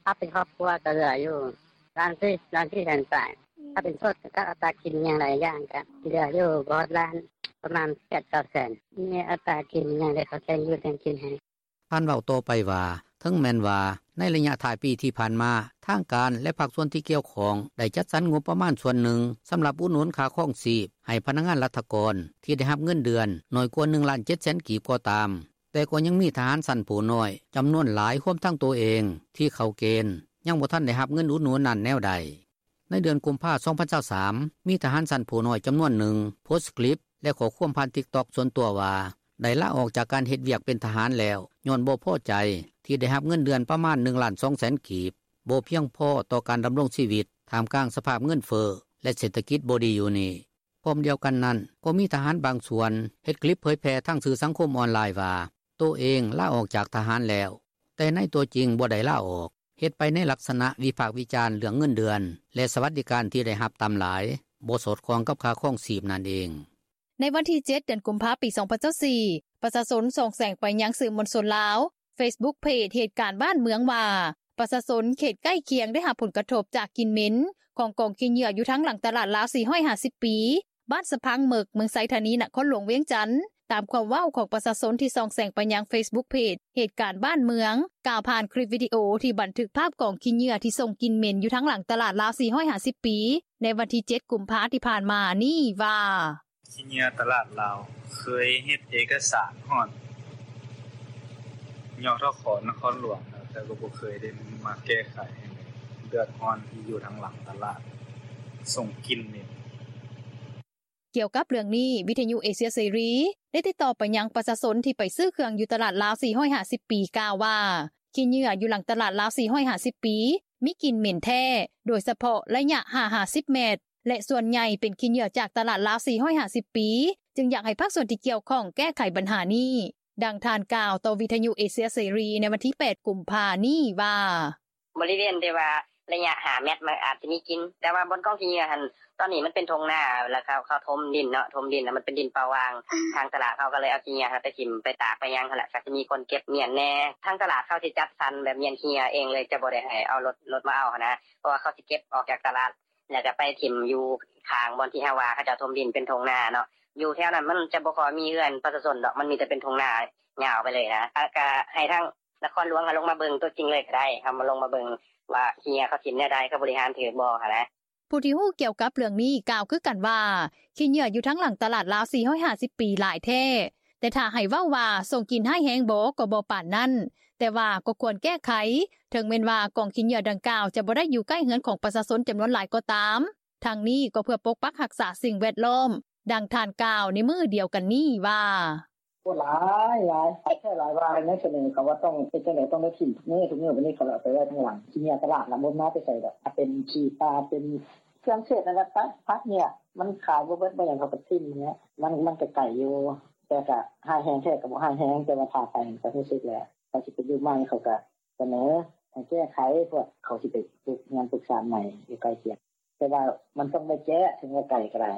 າເປັນຄອບຄົວກໍເຫຼືອຢູ່ລ້ານສີ່ ລ້ານສີ່ແສນປາຍ ຖ້າເປັນໂສດກໍອັດຕາກິນຫຍັງຫຼາຍຢ່າງກໍເຫຼືອຢູ່ບໍ່ຮອດລ້ານ ປະມານແປດເກົ້າແສນ ມີອັດຕາກິນຫຍັງ ແລ້ວເຂົາແຕ່ງຢູ່ແຕ່ງກິນໃຫ້.” ທ່ານເວົ້າຕໍ່ໄປວ່າ ເຖິງແມ່ນວ່າໃນໄລຍະທ້າຍປີທີ່ຜ່ານມາ ທາງການ ແລະພາກສ່ວນທີ່ກ່ຽວຂ້ອງ ໄດ້ຈັດສັນງົບປະມານສ່ວນໜຶ່ງ ສຳລັບອຸດໜູນຄ່າຄອງຊີບໃຫ້ພະນັກງານລັດຖະກອນ ທີ່ໄດ້ຮັບເງິນເດືອນໜ້ອຍກວ່າໜຶ່ງລ້ານເຈັດແສນກີບກໍຕາມ ແຕ່ກໍຍັງມີທະຫານຊັ້ນຜູ້ນ້ອຍຈຳນວນຫຼາຍ ຮວມທັງໂຕເອງ ທີ່ເຂົ້າເກນ ຍັງບໍ່ທັນໄດ້ຮັບເງິນອຸດໜູນນັ້ນແນວໃດ. ໃນເດືອນກຸມພາ ສອງພັນຊາວສາມ ມີທະຫານຊັ້ນຜູ້ນ້ອຍຈຳນວນໜຶ່ງ ໂພສຄລິບ ແລະຂໍ້ຄວາມຜ່ານ TikTok ສ່ວນຕົວວ່າ ໄດ້ລາອອກຈາກການເຮັດວຽກເປັນທະຫານແລ້ວ ຍ້ອນບໍ່ພໍໃຈທີ່ໄດ້ຮັບເງິນເດືອນປະມານໜຶ່ງລ້ານສອງແສນກີບ ບໍ່ພຽງພໍຕໍ່ການດຳລົງຊີວິດ ທ່າມກາງສະພາບເງິນເຟີ້ ແລະເສດຖະກິດບໍ່ດີຢູ່ນີ້. ພ້ອມດຽວກັນນັ້ນ ກໍມີທະຫານບາງສ່ວນເຮັດຄລິບເຜີຍແຜ່ທາງສື່ສັງຄົມອອນລາຍວ່າ ໂຕເອງລາອອກຈາກທະຫານແລ້ວ ແຕ່ໃນຕົວຈິງບໍ່ໄດ້ລາອອກ ເຮັດໄປໃນລັກສະນະວິພາກວິຈານເລື່ອງເງິນເດືອນ ແລະສະຫວັດດີການທີ່ໄດ້ຮັບຕ່ຳຫຼາຍ ບໍ່ສອດຄ່ອງກັບຄ່າຄອງຊີບນັ້ນເອງ. ໃນວັນທີເຈັດ ເດືອນກຸມພາ ປີສອງພັນຊາວສີ່ ປະຊາຊົນສ່ອງແສງໄປຍັງສື່ມວນຊົນລາວ ເຟສບຸກເພຈເຫດການບ້ານເມືອງວ່າ ປະຊາຊົນເຂດໃກ້ຄຽງໄດ້ຮັບຜົນກະທົບຈາກກິ່ນເໝັນຂອງກອງຂີ້ເຫຍື້ອຢູ່ທາງຫຼັງຕະຫຼາດລາວສີ່ຮ້ອຍຫ້າສິບປີ ບ້ານສະພັງເໝິກ ເມືອງໄຊທານີ ນະຄອນຫຼວງວຽງຈັນ ຕາມຄວາມເວົ້າຂອງປະຊາຊົນທີ່ສ່ອງແສງໄປຍັງເຟສບຸກເພຈເຫດການບ້ານເມືອງ ກ່າວຜ່ານຄລິບວິດີໂອທີ່ບັນທຶກພາບກອງຂີ້ເຫຍື້ອທີ່ສົ່ງກິ່ນເໝັນຢູ່ທາງຫຼັງຕະຫຼາດລາວສີ່ຮ້ອຍຫ້າສິບປີ ໃນວັນທີເຈັດ ກຸມພາທີ່ຜ່ານມານີ້ວ່າ: ຂີ້ເຫຍື້ອຕະຫຼາດລາວ ເຄີຍເຮັດເອກະສານຮອດ ຍທຂ ນະຄອນຫຼວງແລ້ວ ແຕ່ກໍບໍ່ເຄີຍໄດ້ມາແກ້ໄຂໃຫ້ເລີຍ ເດືອດຮ້ອນທີ່ຢູ່ທາງຫຼັງຕະຫຼາດ ສົ່ງກິ່ນເໝັນ. ກ່ຽວກັບເລື່ອງນີ້ ວິທຍຸເອເຊຍເສລີໄດ້ຕິດຕໍ່ໄປຍັງປະຊາຊົນທີ່ໄປຊື້ເຄື່ອງຢູ່ຕະຫຼາດລາວສີ່ຮ້ອຍຫ້າສິບປີ ກ່າວວ່າ ຂີ້ເຫຍື້ອຢູ່ຫຼັງຕະຫຼາດລາວສີ່ຮ້ອຍຫ້າສິບປີ ມີກິ່ນເໝັນແທ້ ໂດຍສະເພາະໄລຍະຫ້າຫາສິບແມັດ ແລະ ສ່ວນໃຫຍ່ເປັນຂີ້ເຫຍື້ອຈາກຕະຫຼາດລາວສີ່ຮ້ອຍຫ້າສິບປີ ຈຶ່ງຢາກໃຫ້ພາກສ່ວນທີ່ກ່ຽວຂ້ອງແກ້ໄຂບັນຫານີ້. ດັ່ງທ່ານກ່າວຕໍ່ວິທຍຸເອເຊຍເສລີໃນວັນທີແປດ ກຸມພານີ້ວ່າ: ບໍລິເວນທີ່ວ່າໄລຍະຫ້າແມັດ ມັນອາດຈະມີກິ່ນ ແຕ່ວ່າບ່ອນກອງຂີ້ເຫຍື້ອຫັ້ນ ຕອນນີ້ມັນເປັນທົ່ງນາ ແລ້ວເຂົາ ເຂົາຖົມດິນເນາະ ຖົມດິນ ແລ້ວມັນເປັນດິນເປົ່າຫວ່າງ ທາງຕະຫຼາດເຂົາກໍເລີຍເອົາຂີ້ເຫຍື້ອຫັ້ນໄປຖິ້ມ ໄປຕາກ ໄປຫຍັງຫັ້ນແຫຼະ ກໍຊິມີຄົນເກັບມ້ຽນແດ່. ທາງຕະຫຼາດເຂົາຊິຈັດສັນແບບມ້ຽນຂີ້ເຫຍື້ອເອງເລີຍ ຈະບໍ່ໄດ້ໃຫ້ເອົາລົດ ລົດມາເອົາຫັ້ນນະ ເພາະວ່າເຂົາຊິເກັບອອກຈາກຕະຫຼາດ ແລ້ວກໍໄປຖິ້ມຢູ່ຂ້າງບ່ອນທີ່ເຮົາວ່າເຂົາເຈົ້າຖົມດິນເປັນທົ່ງນາເນາະ. ຢູ່ແຖວນັ້ນມັນຈະບໍ່ຄ່ອຍມີເຮືອນປະຊາຊົນດອກ ມັນມີແຕ່ເປັນທົ່ງນາຍາວໄປເລີຍນະ. ກໍໃຫ້ທາງນະຄອນຫຼວງເຂົາລົງມາເບິ່ງຕົວຈິງເລີຍກໍໄດ້ ເຂົາມາລົງມາເບິ່ງວ່າຂີ້ເຫຍື້ອເຂົາຖິ້ມແນວໃດ ເຂົາບໍລິຫານຖືກບໍ່ຫັ້ນນະ. ຜູ້ທີ່ຮູ້ກ່ຽວກັບເລື່ອງນີ້ກ່າວຄືກັນວ່າ ຂີ້ເຫຍື້ອຢູ່ທາງຫຼັງຕະຫຼາດລາວສີ່ຮ້ອຍຫ້າສິບປີຫຼາຍແທ້ ແຕ່ຖ້າໃຫ້ເວົ້າວ່າສົ່ງກິ່ນຮ້າຍແຮງບໍ່ ກໍບໍ່ປານນັ້ນ ແຕ່ວ່າກໍຄວນແກ້ໄຂ ເຖິງແມ່ນວ່າກອງຂີ້ເຫຍື້ອດັ່ງກ່າວຈະບໍ່ໄດ້ຢູ່ໃກ້ເຮືອນຂອງປະຊາຊົນຈຳນວນຫຼາຍກໍຕາມ. ທັງນີ້ກໍເພື່ອປົກປັກຮັກສາສິ່ງແວດລ້ອມ. ດັ່ງທ່ານກ່າວໃນມື້ດຽວກັນນີ້ວ່າ: ໂອ້ ຫຼາຍ ຫຼາຍ ຫຼາຍແທ້ຫຼາຍວ່າ ໃນສະເໜີເຂົາວ່າຕ້ອງເຮັດຈັ່ງໃດ ຕ້ອງໄດ້ຖິ້ມທຸກມື້ ທຸກມື້ ບາດນີ້ເຂົາເອົາໄປໄວ້ທາງຫຼັງ. ຂີ້ເຫຍື້ອຕະຫຼາດລະບໍ່ມາແຕ່ໃສດອກ ຖ້າເປັນຂີ້ປາ ເປັນເຄື່ອງເສດນັ້ນແຫຼະ ໄປ ຜັກເຫຍື້ອ ມັນຂາຍບໍ່ເບິດບໍ່ຫຍັງ ເຂົາກໍຖິ້ມຫັ້ນແຫຼະ. ມັນ ມັນກໍໄກຢູ່ ແຕ່ກໍຮ້າຍແຮງແທ້ກໍບໍ່ຮ້າຍແຮງ ແຕ່ວ່າຖ້າໄປກໍຮູ້ສຶກແຫຼະ. ເຂົາຊິໄປຢູ່ໃໝ່ ເຂົາກໍສະເໜີໃຫ້ແກ້ໄຂ ພວກເຂົາຊິໄປປຸກເຮືອນປຸກຊານໃໝ່ຢູ່ໃກ້ຄຽງ ແຕ່ວ່າມັນຕ້ອງໄດ້ແກ້ ເຖິງວ່າໄກກໍໄດ້.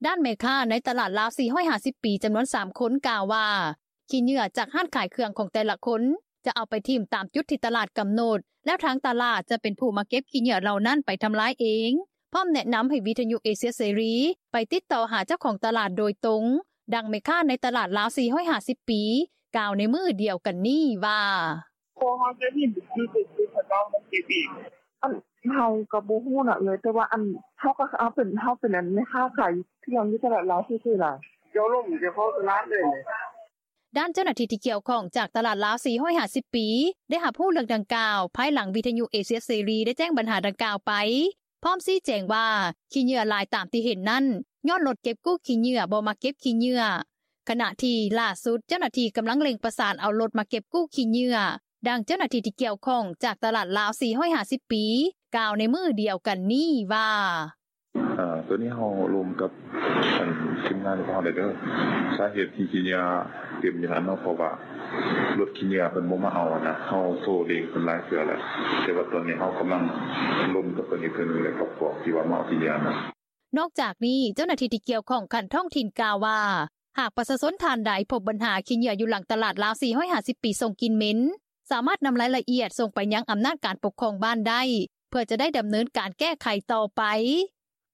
ດ້ານແມ່ຄ້າໃນຕະຫຼາດລາວສີ່ຮ້ອຍຫ້າສິບປີ ຈຳນວນສາມຄົນກ່າວວ່າ ຂີ້ເຫຍື້ອຈາກຮ້ານຂາຍເຄື່ອງຂອງແຕ່ລະຄົນ ຈະເອົາໄປຖິ້ມຕາມຈຸດທີ່ຕະຫຼາດກຳນົດ ແລ້ວທາງຕະຫຼາດຈະເປັນຜູ້ມາເກັບຂີ້ເຫຍື້ອເຫຼົ່ານັ້ນໄປທຳລາຍເອງ. ພ້ອມແນະນຳໃຫ້ວິທຍຸເອເຊຍເສລີໄປຕິດຕໍ່ຫາເຈົ້າຂອງຕະຫຼາດໂດຍຕົງ. ດັ່ງແມ່ຄ້າໃນຕະຫຼາດລາວສີ່ຮ້ອຍຫ້າສິບປີ ກ່າວໃນມື້ດຽວກັນນີ້ວ່າ: ພວກເຮົາຈະເຫັນຄືເປັນເຂົາເຈົ້າມາເກັບເອງ. ອັນ ເຮົາກໍບໍ່ຮູ້ນະເອື້ອຍ ແຕ່ວ່າ ອັນ ເຮົາກໍ ເຮົາເປັນ ເຮົາເປັນ ອັນ ແມ່ຄ້າຂາຍເຄື່ອງຢູ່ຕະຫຼາດລາວຊື່ໆນະ ເຈົ້າລົມເຈົ້າຂອງຕະຫຼາດເລີຍ. ດ້ານເຈົ້າໜ້າທີ່ທີ່ກ່ຽວຂ້ອງຈາກຕະຫຼາດລາວສີ່ຮ້ອຍຫ້າສິບປີ ໄດ້ຮັບຮູ້ເລື່ອງດັ່ງກ່າວ ພາຍຫຼັງວິທຍຸເອເຊຍເສລີໄດ້ແຈ້ງບັນຫາດັ່ງກ່າວໄປ ພ້ອມຊີ້ແຈງວ່າ ຂີ້ເຫຍື້ອຫຼາຍຕາມທີ່ເຫັນນັ້ນ ຍ້ອນລົດເກັບກູ້ຂີ້ເຫຍື້ອບໍ່ມາເກັບຂີ້ເຫຍື້ອ ຂະນະທີ່ລ່າສຸດເຈົ້າໜ້າທີ່ກຳລັງເລັ່ງປະສານເອົາລົດມາເກັບກູ້ຂີ້ເຫຍື້ອ. ດັ່ງເຈົ້າໜ້າທີ່ທີ່ກ່ຽວຂ້ອງຈາກຕະຫຼາດລາວສີ່ຮ້ອຍຫ້າສິບປີ ກ່າວໃນມື້ດຽວກັນນີ້ວ່າ: ເອີ ໂຕນີ້ເຮົາລົມກັບ ອັນ ທີມງານຂອງເຮົາແລ້ວເດີ ສາເຫດທີ່ຂີ້ເຫຍື້ອເຕັມຢູ່ຫັ້ນເນາະ ເພາະວ່າລົດຂີ້ເຫຍື້ອເພິ່ນບໍ່ມາເອົາຫັ້ນນະ ເຮົາໂທເລັ່ງເພິ່ນຫຼາຍເທື່ອແລ້ວ ແຕ່ວ່າຕອນນີ້ເຮົາກຳລັງລົມກັບເພິ່ນອີກເທື່ອໜຶ່ງ ແລະ ກັບພວກທີ່ວ່າມາເອົາຂີ້ເຫຍື້ອຫັ້ນນະ. ນອກຈາກນີ້ ເຈົ້າໜ້າທີ່ທີ່ກ່ຽວຂ້ອງຂັ້ນທ້ອງຖິ່ນກ່າວວ່າ ຫາກປະຊາຊົນທ່ານໃດພົບບັນຫາຂີ້ເຫຍື້ອຢູ່ຫຼັງຕະຫຼາດລາວສີ່ຮ້ອຍຫ້າສິບປີສົ່ງກິ່ນເໝັນ ສາມາດນຳລາຍລະອຽດສົ່ງໄປຍັງອຳນາດການປົກຄອງບ້ານໄດ້ ເພື່ອຈະໄດ້ດຳເນີນການແກ້ໄຂຕໍ່ໄປ.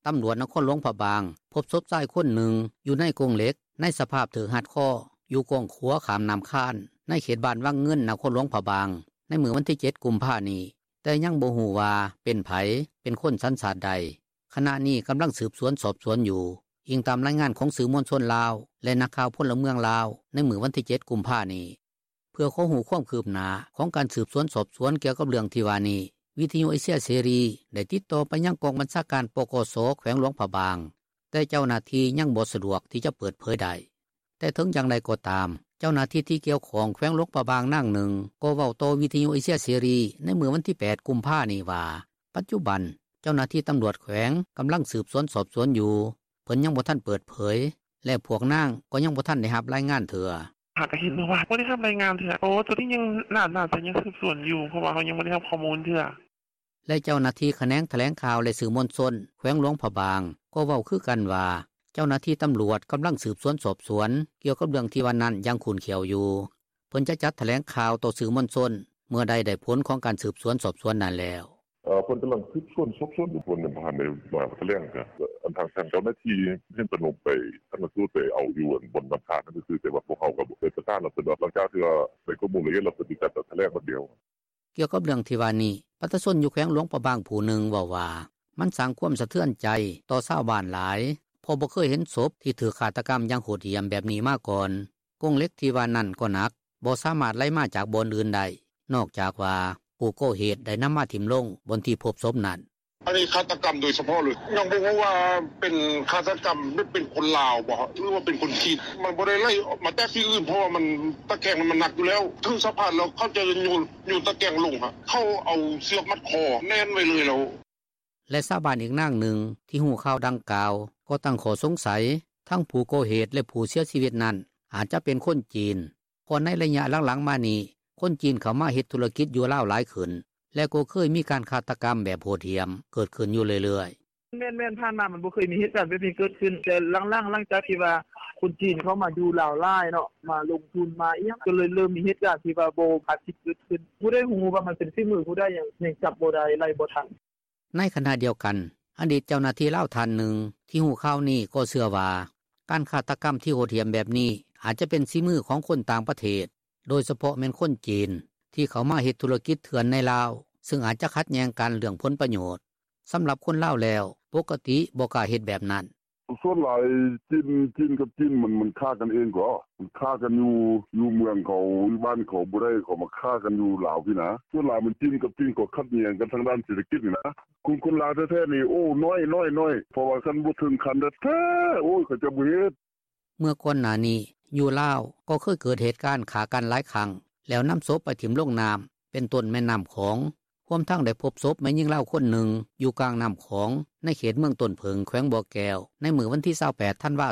ຕຳຫຼວດນະຄອນຫຼວງພະບາງ ພົບສົບຊາຍຄົນໜຶ່ງຢູ່ໃນກົງເຫຼັກ ໃນສະພາບຖືກຮັດຄໍ ຢູ່ກ້ອງຂົວຂ້າມນ້ຳຄານ ໃນເຂດບ້ານວັງເງິນ ນະຄອນຫຼວງພະບາງ ໃນມື້ວັນທີເຈັດ ກຸມພານີ້ ແຕ່ຍັງບໍ່ຮູ້ວ່າເປັນໃຜ ເປັນຄົນສັນຊາດໃດ. ຂະນະນີ້ກຳລັງສືບສວນສອບສວນຢູ່, ອີງຕາມລາຍງານຂອງສື່ມວນຊົນລາວ ແລະ ນັກຂ່າວພົນລະເມືອງລາວ ໃນມື້ວັນທີເຈັດ ກຸມພານີ້. ເພື່ອຂໍຮູ້ຄວາມຄືບໜ້າຂອງການສືບສວນສອບສວນກ່ຽວກັບເລື່ອງທີ່ວ່ານີ້, ວິທຍຸເອເຊຍເສລີໄດ້ຕິດຕໍ່ໄປຍັງກອງບັນຊາການ ປກສ ແຂວງຫຼວງພະບາງ, ແຕ່ເຈົ້າໜ້າທີ່ຍັງບໍ່ສະດວກທີ່ຈະເປີດເຜີຍໄດ້. ແຕ່ເຖິງຢ່າງໃດກໍຕາມ, ເຈົ້າໜ້າທີ່ທີ່ກ່ຽວຂ້ອງແຂວງຫຼວງພະບາງນາງໜຶ່ງກໍເວົ້າຕໍ່ວິທຍຸເອເຊຍເສລີໃນມື້ວັນທີແປດ ກຸມພານີ້ວ່າ ປັດຈຸບັນເຈົ້າໜ້າທີ່ຕຳຫຼວດແຂວງກຳລັງສືບສວນສອບສວນຢູ່, ເພິ່ນຍັງບໍ່ທັນເປີດເຜີຍ ແລະ ພວກນາງກໍຍັງບໍ່ທັນໄດ້ຮັບລາຍງານເທື່ອ. ຫາກໍເຫັນເມື່ອວານ ບໍ່ໄດ້ຮັບລາຍງານເທື່ອ. ໂອ້ ໂຕນີ້ຍັງ ໜ້າ ໜ້າຈະຍັງສືບສວນຢູ່ ເພາະວ່າເຮົາຍັງບໍ່ໄດ້ຮັບຂໍ້ມູນເທື່ອ. ແລະ ເຈົ້າໜ້າທີ່ຂະແໜງຖະແຫຼງຂ່າວ ແລະ ສື່ມວນຊົນແຂວງຫຼວງພະບາງກໍເວົ້າຄືກັນວ່າ ເຈົ້າໜ້າທີ່ຕຳຫຼວດກຳລັງສືບສວນສອບສວນກ່ຽວກັບເລື່ອງທີ່ວ່ານັ້ນຢ່າງຂຸ້ນຂ້ຽວຢູ່. ເພິ່ນຈະຈັດຖະແຫຼງຂ່າວຕໍ່ສື່ມວນຊົນເມື່ອໃດໄດ້ຜົນຂອງການສືບສວນສອບສວນນັ້ນແລ້ວ. ເອີ ເພິ່ນກຳລັງສືບສວນສອບສວນຢູ່ ເພິ່ນຍັງບໍ່ທັນໄດ້ມາຖະແຫຼງເທື່ອ. ທາງເຈົ້າໜ້າທີ່ເຫັນເພິ່ນລົງໄປຊັນນະສູດ ໄປເອົາຢູ່ບ່ອນນ້ຳທາດນັ້ນຊື່ໆ ແຕ່ວ່າພວກເຮົາກໍໄດ້ປະສານແລ້ວ ເພິ່ນວ່າຫຼັງຈາກທີ່ວ່າໄດ້ຂໍ້ມູນລະອຽດແລ້ວ ເພິ່ນຊິຈັດຖະແຫຼງວັນດຽວ.” ກ່ຽວກັບເລື່ອງທີ່ວ່ານີ້ ປະຊາຊົນຢູ່ແຂວງຫຼວງພະບາງຜູ້ໜຶ່ງເວົ້າວ່າ ມັນສ້າງຄວາມສະເທືອນໃຈຕໍ່ຊາວບ້ານຫຼາຍ ເພາະບໍ່ເຄີຍເຫັນສົບທີ່ຖືກຄາດຕະກຳຢ່າງໂຫດຫ້ຽມແບບນີ້ມາກ່ອນ. ກົງເຫຼັກທີ່ວ່ານັ້ນກໍໜັກ ບໍ່ສາມາດໄຫຼມາຈາກບ່ອນອື່ນໄດ້ ນອກຈາກວ່າຜູ້ກໍ່ເຫດໄດ້ນຳມາຖິ້ມລົງບ່ອນທີ່ພົບສົບນັ້ນ. “ອັນນີ້ຄາດຕະກຳໂດຍສະເພາະເລີຍ ຍັງບໍ່ຮູ້ວ່າເປັນຄາດຕະກຳ ຫຼືເປັນຄົນລາວບໍ່ ຫຼືວ່າເປັນຄົນຈີນ ມັນບໍ່ໄດ້ໄຫຼມາຈາກທີ່ອື່ນ ເພາະວ່າມັນ ຕະແກງມັນໜັກຢູ່ແລ້ວ ເຖິງສະພານແລ້ວ ເຂົາຈະໂຍນຕະແກງລົງ ເຂົາເອົາເຊືອກມັດຄໍແໜ້ນໄວ້ເລີຍແລ້ວ.” ແລະຊາວບ້ານອີກນາງໜຶ່ງ ທີ່ຮູ້ຂ່າວດັ່ງກ່າວ ກໍຕັ້ງຂໍ້ສົງໄສ ທັງຜູ້ກໍ່ເຫດ ແລະຜູ້ເສຍຊີວິດນັ້ນ ອາດຈະເປັນຄົນຈີນ ເພາະໃນໄລຍະຫຼັງໆມານີ້ ຄົນຈີນເຂົ້າມາເຮັດທຸລະກິດຢູ່ລາວຫຼາຍຂຶ້ນ ແລະກໍເຄີຍມີການຄາດຕະກຳແບບໂຫດຫ້ຽມເກີດຂຶ້ນຢູ່ເລື້ອຍໆ. “ແມ່ນໆ ຜ່ານມາມັນບໍ່ເຄີຍມີເຫດການແບບນີ້ເກີດຂຶ້ນ ແຕ່ຫຼັງໆ ຫຼັງຈາກທີ່ວ່າຄົນຈີນເຂົ້າມາຢູ່ລາວຫຼາຍເນາະ ມາລົງທຶນມາອີ່ຫຍັງ ກໍເລີຍເລີ່ມມີເຫດການທີ່ວ່າບໍ່ຄາດຄິດເກີດຂຶ້ນ ບໍ່ໄດ້ຮູ້ວ່າມັນເປັນຝີມືຜູ້ໃດ ຍັງຈັບບໍ່ໄດ້ ໄລ່ບໍ່ທັນ.” ໃນຂະນະດຽວກັນ ອະດີດເຈົ້າໜ້າທີ່ລາວທ່ານໜຶ່ງ ທີ່ຮູ້ຂ່າວນີ້ກໍເຊື່ອວ່າ ການຄາດຕະກຳທີ່ໂຫດຫ້ຽມແບບນີ້ ອາດຈະເປັນສີມືຂອງຄົນຕ່າງປະເທດ ໂດຍສະເພາະແມ່ນຄົນຈີນ ທີ່ເຂົ້າມາເຮັດທຸລະກິດເຖື່ອນໃນລາວ ຊຶ່ງອາດຂັດແຍ່ງກັນເລື່ອງຜົນປະໂຫຍດ. ສຳລັບຄົນລາວແລ້ວ ປົກກະຕິບໍ່ກ້າເຮັດແບບນັ້ນ. “ສ່ວນຫຼາຍຈີນກັບຈີນ ມັນຂ້າກັນເອງເກາະ ມັນຂ້າກັນຢູ່ເມືອງເຂົາ ຢູ່ບ້ານເຂົາບໍ່ໄດ້ ເຂົາມາຂ້າກັນຢູ່ລາວພີ້ນ່າ ສ່ວນຫຼາຍຈີນກັບຈີນ ເຂົາຂັດແຍ່ງກັນທາງດ້ານເສດຖະກິດນີ້ນ່າ ຄົນລາວແທ້ໆນີ້ ໂອ້ ໜ້ອຍໆ ເພາະວ່າຄັນບໍ່ເຖິງຂັ້ນແທ້ໆ ໂອ້ຍ ເຂົາເຈົ້າບໍ່ເຮັດ.” ເມື່ອກ່ອນໜ້ານີ້ ຢູ່ລາວກໍເຄີຍເກີດເຫດການຂ້າກັນຫຼາຍຄັ້ງ ແລ້ວນຳສົບໄປຖິ້ມລົງນໍ້າ ເປັນຕົ້ນແມ່ນໍ້າຂອງ ຮວມທັງໄດ້ພົບສົບແມ່ຍິງລາວຄົນໜຶ່ງ ຢູ່ກາງນໍ້າຂອງ ໃນເຂດເມືອງຕົ້ນເຜິ້ງ ແຂວງບໍ່ແກ້ວ ໃນມື້ວັນທີ 28 ທັນວາ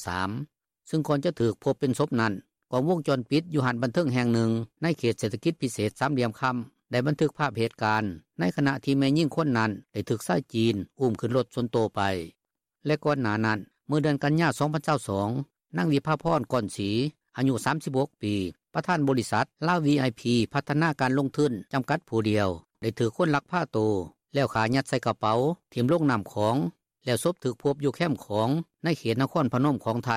2023 ຊຶ່ງກ່ອນຈະຖືກພົບເປັນສົບນັ້ນ ກ້ອງວົງຈອນປິດຢູ່ຮ້ານບັນເທີງແຫ່ງໜຶ່ງ ໃນເຂດເສດຖະກິດພິເສດສາມຫຼ່ຽມຄຳ ໄດ້ບັນທຶກພາບເຫດການ ໃນຂະນະທີ່ແມ່ຍິງຄົນນັ້ນ ໄດ້ຖືກຊາຍຈີນ ອຸ້ມຂຶ້ນລົດສ່ວນໂຕໄປ. ແລະກ່ອນໜ້ານັ້ນ ເມື່ອເດືອນກັນຍາ 2022 ນາງ ວິພາພອນ ກອນສີ ອາຍຸ 36 ປີ ປະທານບໍລິສັດ ລາວ ວີໄອພີ ພັດທະນາການລົງທຶນ ຈຳກັດຜູ້ດຽວ ໄດ້ຖືກຄົນລັກພາໂຕ ແລ້ວຂ້າຍັດໃສ່ກະເປົາ ຖິ້ມລົງນໍ້າຂອງ ແລ້ວສົບຖືກພົບຢູ່ແຄມຂອງ ໃນເຂດນະຄອນພະນົມຂອງໄທ.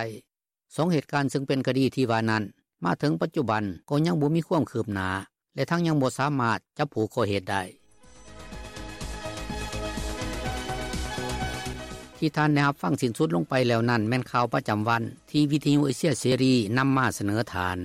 ສອງເຫດການຊຶ່ງເປັນຄະດີທີ່ວ່ານັ້ນ ມາເຖິງປັດຈຸບັນ ກໍຍັງບໍ່ມີຄວາມຄືບໜ້າ ແລະທັງຍັງບໍ່ສາມາດຈັບຜູ້ກໍ່ເຫດໄດ້. ທີ່ທ່ານໄດ້ຮັບຟັງສິ້ນສຸດລົງໄປແລ້ວນັ້ນ ແມ່ນຂ່າວປະຈຳວັນ ທີ່ວິທຍຸເອເຊຍເສລີ ນຳມາສະເໜີທ່ານ.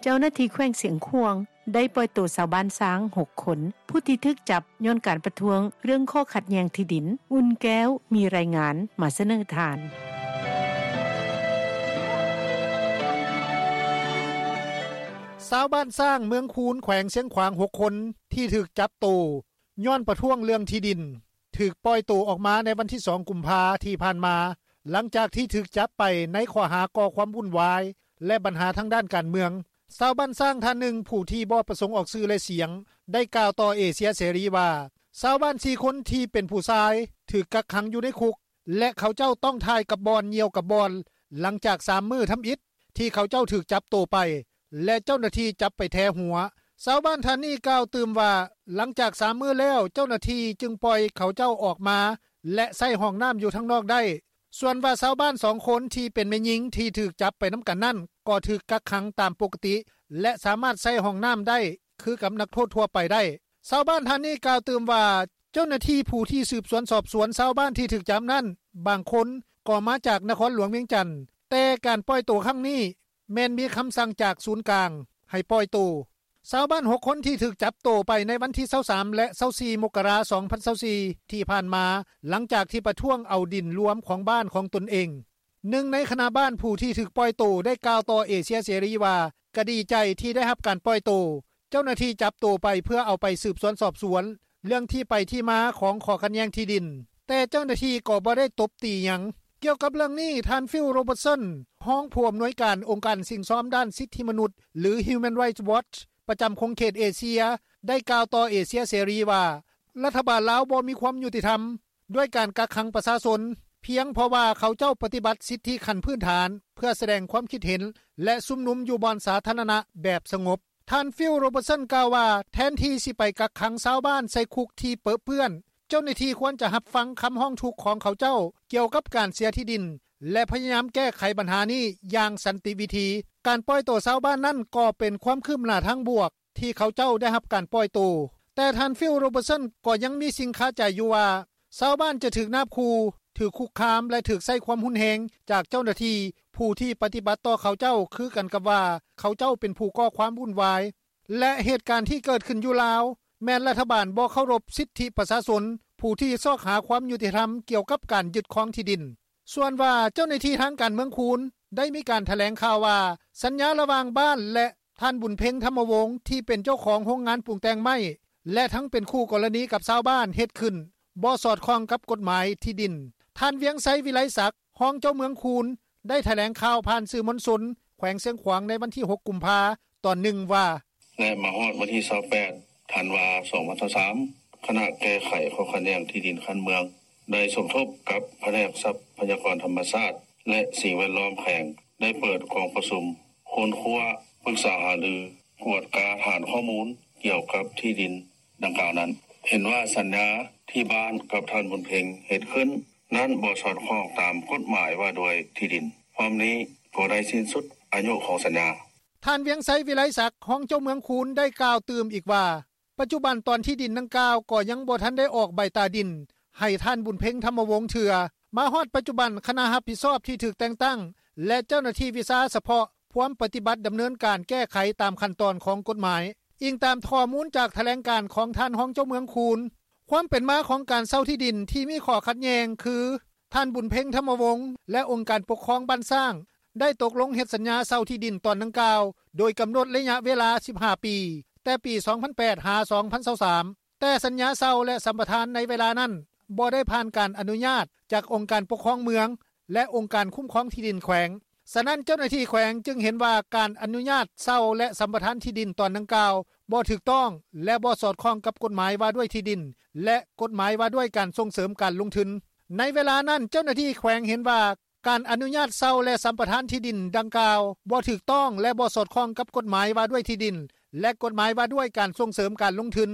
ເຈົ້າໜ້າທີ່ແຂວງຊຽງຂວາງ ໄດ້ປ່ອຍໂຕຊາວບ້ານຊ້າງ ຫົກຄົນ ຜູ້ທີ່ຖືກຈັບຍ້ອນການປະທ້ວງ ເລື່ອງຂໍ້ຂັດແຍ່ງທີ່ດິນ. ອຸ່ນແກ້ວ ມີລາຍງານມາສະເໜີທ່ານ. ຊາວບ້ານຊ້າງ ເມືອງຄູນ ແຂວງຊຽງຂວາງ ຫົກຄົນ ທີ່ຖືກຈັບໂຕຍ້ອນປະທ້ວງເລື່ອງທີ່ດິນ ຖືກປ່ອຍໂຕອອກມາໃນວັນທີ ສອງ ກຸມພາ ທີ່ຜ່ານມາ ຫຼັງຈາກທີ່ຖືກຈັບໄປໃນຂໍ້ຫາກໍ່ຄວາມວຸ້ນວາຍ ແລະບັນຫາທາງດ້ານການເມືອງ. ຊາວບ້ານຊ້າງທ່ານໜຶ່ງ ຜູ້ທີ່ບໍ່ປະສົງອອກຊື່ ແລະສຽງ ໄດ້ກ່າວຕໍ່ເອເຊຍເສລີວ່າ ຊາວບ້ານ ສີ່ ຄົນທີ່ເປັນຜູ້ຊາຍ ຖືກກັກຂັງຢູ່ໃນຄຸກ ແລະເຂົາເຈົ້າຕ້ອງຖ່າຍກັບບ່ອນ ຍ່ຽວກັບບ່ອນ ຫຼັງຈາກ ສາມ ມື້ທຳອິດ ທີ່ເຂົາເຈົ້າຖືກຈັບໂຕໄປ ແລະເຈົ້າໜ້າທີ່ຈັບໄປແທຫົວ. ຊາວບ້ານທ່ານນີ້ກ່າວຕື່ມວ່າ ຫຼັງຈາກ ສາມ ມື້ແລ້ວ ເຈົ້າໜ້າທີ່ຈຶ່ງປ່ອຍເຂົາເຈົ້າອອກມາ ແລະໃຊ້ຫ້ອງນໍ້າຢູ່ທາງນອກໄດ້. ສ່ວນວ່າຊາວບ້ານ ສອງ ຄົນ ທີ່ເປັນແມ່ຍິງ ທີ່ຖືກຈັບໄປນຳກັນນັ້ນ ກໍຖືກກັກຂັງຕາມປົກກະຕິ ແລະສາມາດໃຊ້ຫ້ອງນໍ້າໄດ້ ຄືກັບນັກໂທດທົ່ວໄປໄດ້. ຊາວບ້ານທ່ານນີ້ກ່າວຕື່ມວ່າ ເຈົ້າໜ້າທີ່ຜູ້ທີ່ສືບສວນສອບສວນຊາວບ້ານທີ່ຖືກຈັບນັ້ນ ບາງຄົນກໍມາຈາກນະຄອນຫຼວງວຽງຈັນ ແຕ່ການປ່ອຍໂຕຄັ້ງນີ້ ແມ່ນມີຄຳສັ່ງຈາກສູນກາງໃຫ້ປ່ອຍໂຕ. ຊາວບ້ານ ຫົກ ຄົນ ທີ່ຖືກຈັບໂຕໄປໃນວັນທີ 23 ແລະ 24 ມົກກະລາ 2024 ທີ່ຜ່ານມາ ຫຼັງຈາກທີ່ປະທ້ວງເອົາດິນລວມຂອງບ້ານຂອງຕົນເອງ. ໜຶ່ງໃນຄະນະບ້ານຜູ້ທີ່ຖືກປ່ອຍໂຕ ໄດ້ກ່າວຕໍ່ເອເຊຍເສລີວ່າ ກະດີໃຈທີ່ໄດ້ຮັບການປ່ອຍໂຕ. ເຈົ້າໜ້າທີ່ຈັບໂຕໄປເພື່ອເອົາໄປສືບສວນສອບສວນ ເລື່ອງທີ່ໄປທີ່ມາຂອງຂໍ້ຂັດແຍ່ງທີ່ດິນ, ແຕ່ເຈົ້າໜ້າທີ່ກໍບໍ່ໄດ້ຕົບຕີຫຍັງ. ກ່ຽວກັບເລື່ອງນີ້, ທ່ານ ຟິລ ໂຣເບີດສັນ, ຮອງຜູ້ອຳນວຍການອົງການສິ້ງຊອມດ້ານສິດທິມະນຸດ ຫຼື Human Rights Watch ປະຈຳຂົງເຂດເອເຊຍ ໄດ້ກ່າວຕໍ່ເອເຊຍເສລີວ່າ ລັດຖະບານລາວບໍ່ມີຄວາມຍຸຕິທຳ ດ້ວຍການກັກຂັງປະຊາຊົນ ພຽງເພາະວ່າເຂົາເຈົ້າປະຕິບັດສິດທິຂັ້ນພື້ນຖານ ເພື່ອສະແດງຄວາມຄິດເຫັນ ແລະ ຊຸມນຸມຢູ່ບ່ອນສາທາລະນະແບບສະຫງົບ. ທ່ານ ຟິວ ໂຣເບີດສັນ ກ່າວວ່າ ແທນທີ່ຊິໄປກັກຂັງຊາວບ້ານໃສ່ຄຸກທີ່ເປິເປື້ອນ, ເຈົ້າໜ້າທີ່ຄວນຈະຮັບຟັງຄຳຮ້ອງທຸກຂອງເຂົາເຈົ້າກ່ຽວກັບການເສຍທີ່ດິນ ແລະ ພະຍາຍາມແກ້ໄຂບັນຫານີ້ຢ່າງສັນຕິວິທີ. ການປ່ອຍໂຕຊາວບ້ານນັ້ນກໍເປັນຄວາມຄືບໜ້າທາງບວກ ທີ່ເຂົາເຈົ້າໄດ້ຮັບການປ່ອຍໂຕ. ແຕ່ທ່ານ ຟິວ ໂຣເບີດສັນ ກໍຍັງມີສິ່ງຄາໃຈຢູ່ວ່າ ຊາວບ້ານຈະຖືກນາບຂູ່, ຖືກຄຸກຄາມ ແລະ ຖືກໃຊ້ຄວາມຮຸນແຮງຈາກເຈົ້າໜ້າທີ່ ຜູ້ທີ່ປະຕິບັດຕໍ່ເຂົາເຈົ້າຄືກັນກັບວ່າ ເຂົາເຈົ້າເປັນຜູ້ກໍ່ຄວາມວຸ້ນວາຍ ແລະ ເຫດການທີ່ເກີດຂຶ້ນຢູ່ລາວ ແມ່ນລັດຖະບານບໍ່ເຄົາລົບສິດທິປະຊາຊົນ ຜູ້ທີ່ຊອກຫາຄວາມຍຸຕິທຳກ່ຽວກັບການຍຶດຄອງທີ່ດິນ. ສ່ວນວ່າເຈົ້າໜ້າທີ່ທາງການເມືອງຄູນ ໄດ້ມີການຖະແຫຼງຂ່າວວ່າ ສັນຍາລະຫວ່າງບ້ານ ແລະ ທ່ານ ບຸນເພັງ ທຳມະວົງ ທີ່ເປັນເຈົ້າຂອງໂຮງງານປຸງແຕ່ງໄມ້ ແລະ ທັງເປັນຄູ່ກໍລະນີກັບຊາວບ້ານເຮັດຂຶ້ນ ບໍ່ສອດຄ່ອງກັບກົດໝາຍທີ່ດິນ. ທ່ານ ວຽງໄຊ ວິໄລສັກ ຮອງເຈົ້າເມືອງຄູນ ໄດ້ຖະແຫຼງຂ່າວຜ່ານສື່ມວນຊົນແຂວງຊຽງຂວາງໃນວັນທີຫົກ ກຸມພາ ຕອນໜຶ່ງວ່າ ແລະ ມາຮອດວັນທີຊາວແປດ ທັນວາ ສອງພັນຊາວສາມ ຄະນະແກ້ໄຂຂໍ້ຂັດແຍ່ງທີ່ດິນຂັ້ນເມືອງ ໄດ້ສົມທົບກັບພະແນກຊັບພະຍາກອນທຳມະຊາດ ແລະ ສິ່ງແວດລ້ອມແຂວງ ໄດ້ເປີດກອງປະຊຸມຄົ້ນຄວ້າ, ປຶກສາຫາລື, ກວດກາຖານຂໍ້ມູນກ່ຽວກັບທີ່ດິນດັ່ງກ່າວນັ້ນ. ເຫັນວ່າສັນຍາທີ່ບ້ານກັບທ່ານ ບຸນເພັງ ເຮັດຂຶ້ນນັ້ນບໍ່ສອດຄ່ອງຕາມກົດໝາຍວ່າດ້ວຍທີ່ດິນ. ພ້ອມນີ້ກໍໄດ້ສິ້ນສຸດອາຍຸຂອງສັນຍາ. ທ່ານ ວຽງໄຊ ວິໄລສັກ ຮອງເຈົ້າເມືອງຄູນ ໄດ້ກ່າວຕື່ມອີກວ່າ ປັດຈຸບັນຕອນທີ່ດິນດັ່ງກ່າວກໍຍັງບໍ່ທັນໄດ້ອອກໃບຕາດິນໃຫ້ທ່ານ ບຸນເພັງ ທຳມະວົງ ເທື່ອ. ມາຮອດປັດຈຸບັນ ຄະນະຮັບຜິດຊອບທີ່ຖືກແຕ່ງຕັ້ງ ແລະ ເຈົ້າໜ້າທີ່ວິຊາສະເພາະພວມປະຕິບັດດຳເນີນການແກ້ໄຂຕາມຂັ້ນຕອນຂອງກົດໝາຍ, ອີງຕາມຂໍ້ມູນຈາກຖະແຫຼງການຂອງທ່ານຮອງເຈົ້າເມືອງຄູນ. ຄວາມເປັນມາຂອງການເຊົ່າທີ່ດິນທີ່ມີຂໍ້ຂັດແຍ່ງຄື ທ່ານ ບຸນເພັງ ທຳມະວົງ ແລະ ອົງການປົກຄອງບ້ານຊ້າງ ໄດ້ຕົກລົງເຮັດສັນຍາເຊົ່າທີ່ດິນຕອນດັ່ງກ່າວ ໂດຍກຳນົດໄລຍະເວລາສິບຫ້າປີ ແຕ່ປີສອງພັນແປດ ຫາ ສອງພັນຊາວສາມ ແຕ່ສັນຍາເຊົ່າ ແລະ ສຳປະທານໃນເວລານັ້ນ ບໍ່ໄດ້ຜ່ານການອະນຸຍາດຈາກອົງການປົກຄອງເມືອງ ແລະ ອົງການຄຸ້ມຄອງທີ່ດິນແຂວງ. ສະນັ້ນ ເຈົ້າໜ້າທີ່ແຂວງຈຶ່ງເຫັນວ່າການອະນຸຍາດເຊົ່າ ແລະ ສຳປະທານທີ່ດິນຕອນດັ່ງກ່າວບໍ່ຖືກຕ້ອງ ແລະ ບໍ່ສອດຄ່ອງກັບກົດໝາຍວ່າດ້ວຍທີ່ດິນ ແລະ ກົດໝາຍວ່າດ້ວຍການສົ່ງເສີມການລົງທຶນ. ໃນເວລານັ້ນ ເຈົ້າໜ້າທີ່ແຂວງເຫັນວ່າ ການອະນຸຍາດເຊົ່າ ແລະ ສຳປະທານທີ່ດິນດັ່ງກ່າວບໍ່ຖືກຕ້ອງ ແລະ ບໍ່ສອດຄ່ອງກັບກົດໝາຍວ່າດ້ວຍທີ່ດິນ ແລະ ກົດໝາຍວ່າດ້ວຍການສົ່ງເສີມການລົງທຶນ.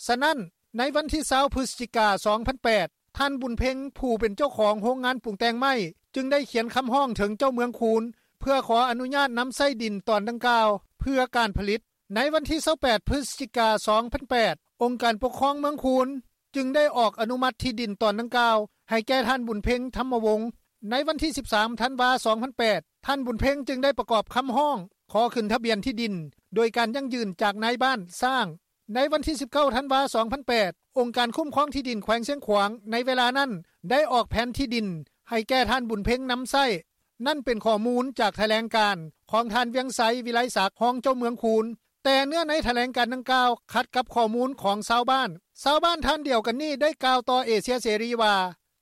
ສະນັ້ນ ໃນວັນທີຊາວ ພຶສຈິກາ ສອງພັນແປດ ທ່ານ ບຸນເພັງ ຜູ້ເປັນເຈົ້າຂອງໂຮງງານປຸງແຕ່ງໄມ້ ຈຶ່ງໄດ້ຂຽນຄຳຮ້ອງເຖິງເຈົ້າເມືອງຄູນ ເພື່ອຂໍອະນຸຍາດນຳໃຊ້ດິນຕອນດັ່ງກ່າວເພື່ອການຜະລິດ. ໃນວັນທີຊາວແປດ ພຶສຈິກາ ສອງພັນແປດ ອົງການປົກຄອງເມືອງຄູນ ຈຶ່ງໄດ້ອອກອະນຸມັດທີ່ດິນຕອນດັ່ງກ່າວໃຫ້ແກ່ທ່ານ ບຸນເພັງ ທຳມະວົງ. ໃນວັນທີສິບສາມ ທັນວາ ສອງພັນແປດ ທ່ານ ບຸນເພັງ ຈຶ່ງໄດ້ປະກອບຄຳຮ້ອງຂໍຂຶ້ນທະບຽນທີ່ດິນ ໂດຍການຢັ້ງຢືນຈາກນາຍບ້ານຊ້າງ. ໃນວັນທີສິບເກົ້າ ທັນວາ ສອງພັນແປດ ອົງການຄຸ້ມຄອງທີ່ດິນແຂວງຊຽງຂວາງໃນເວລານັ້ນ ໄດ້ອອກແຜນທີ່ດິນໃຫ້ແກ່ທ່ານ ບຸນເພັງ ນຳໃຊ້. ນັ້ນເປັນຂໍ້ມູນຈາກຖະແຫຼງການຂອງທ່ານ ວຽງໄຊ ວິໄລສັກ ຮອງເຈົ້າເມືອງຄູນ. ແຕ່ເນື້ອໃນຖະແຫຼງການດັ່ງກ່າວຂັດກັບຂໍ້ມູນຂອງຊາວບ້ານ. ຊາວບ້ານທ່ານດຽວກັນນີ້ໄດ້ກ່າວຕໍ່ເອເຊຍເສລີວ່າ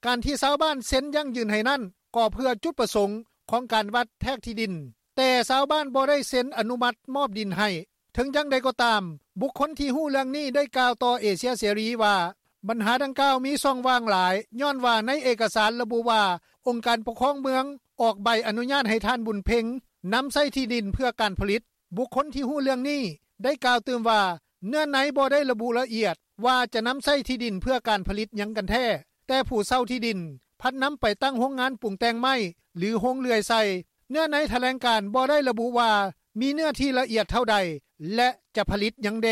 ການທີ່ຊາວບ້ານເຊັນຢັ້ງຢືນໃຫ້ນັ້ນ ກໍເພື່ອຈຸດປະສົງຂອງການວັດແທກທີ່ດິນ, ແຕ່ຊາວບ້ານບໍ່ໄດ້ເຊັນອະນຸມັດມອບດິນໃຫ້. ເຖິງຢ່າງໃດກໍຕາມ, ບຸກຄົນທີ່ຮູ້ເລື່ອງນີ້ໄດ້ກ່າວຕໍ່ເອເຊຍເສລີວ່າ ບັນຫາດັ່ງກ່າວມີຊ່ອງວ່າງຫຼາຍ, ຍ້ອນວ່າໃນເອກະສານລະບຸວ່າ ອົງການປົກຄອງເມືອງອອກໃບອະນຸຍາດໃຫ້ທ່ານ ບຸນເພັງ ນຳໃຊ້ທີ່ດິນເພື່ອການຜະລິດ. ບຸກຄົນທີ່ຮູ້ເລື່ອງນີ້ໄດ້ກ່າວຕື່ມວ່າ ເນື້ອໃນບໍ່ໄດ້ລະບຸລະອຽດວ່າຈະນຳໃຊ້ທີ່ດິນເພື່ອການຜະລິດຫຍັງກັນແທ້, ແຕ່ຜູ້ເຊົ່າທີ່ດິນພັດນຳໄປຕັ້ງໂຮງງານປຸງແຕ່ງໄມ້ ຫຼື ໂຮງເລື່ອຍໃສ່. ເນື້ອໃນຖະແຫຼງການບໍ່ໄດ້ລະບຸວ່າມີເນື້ອທີ່ລະອຽດເທົ່າໃດ ແລະ ຈະຜະລິດຫຍັງແດ່.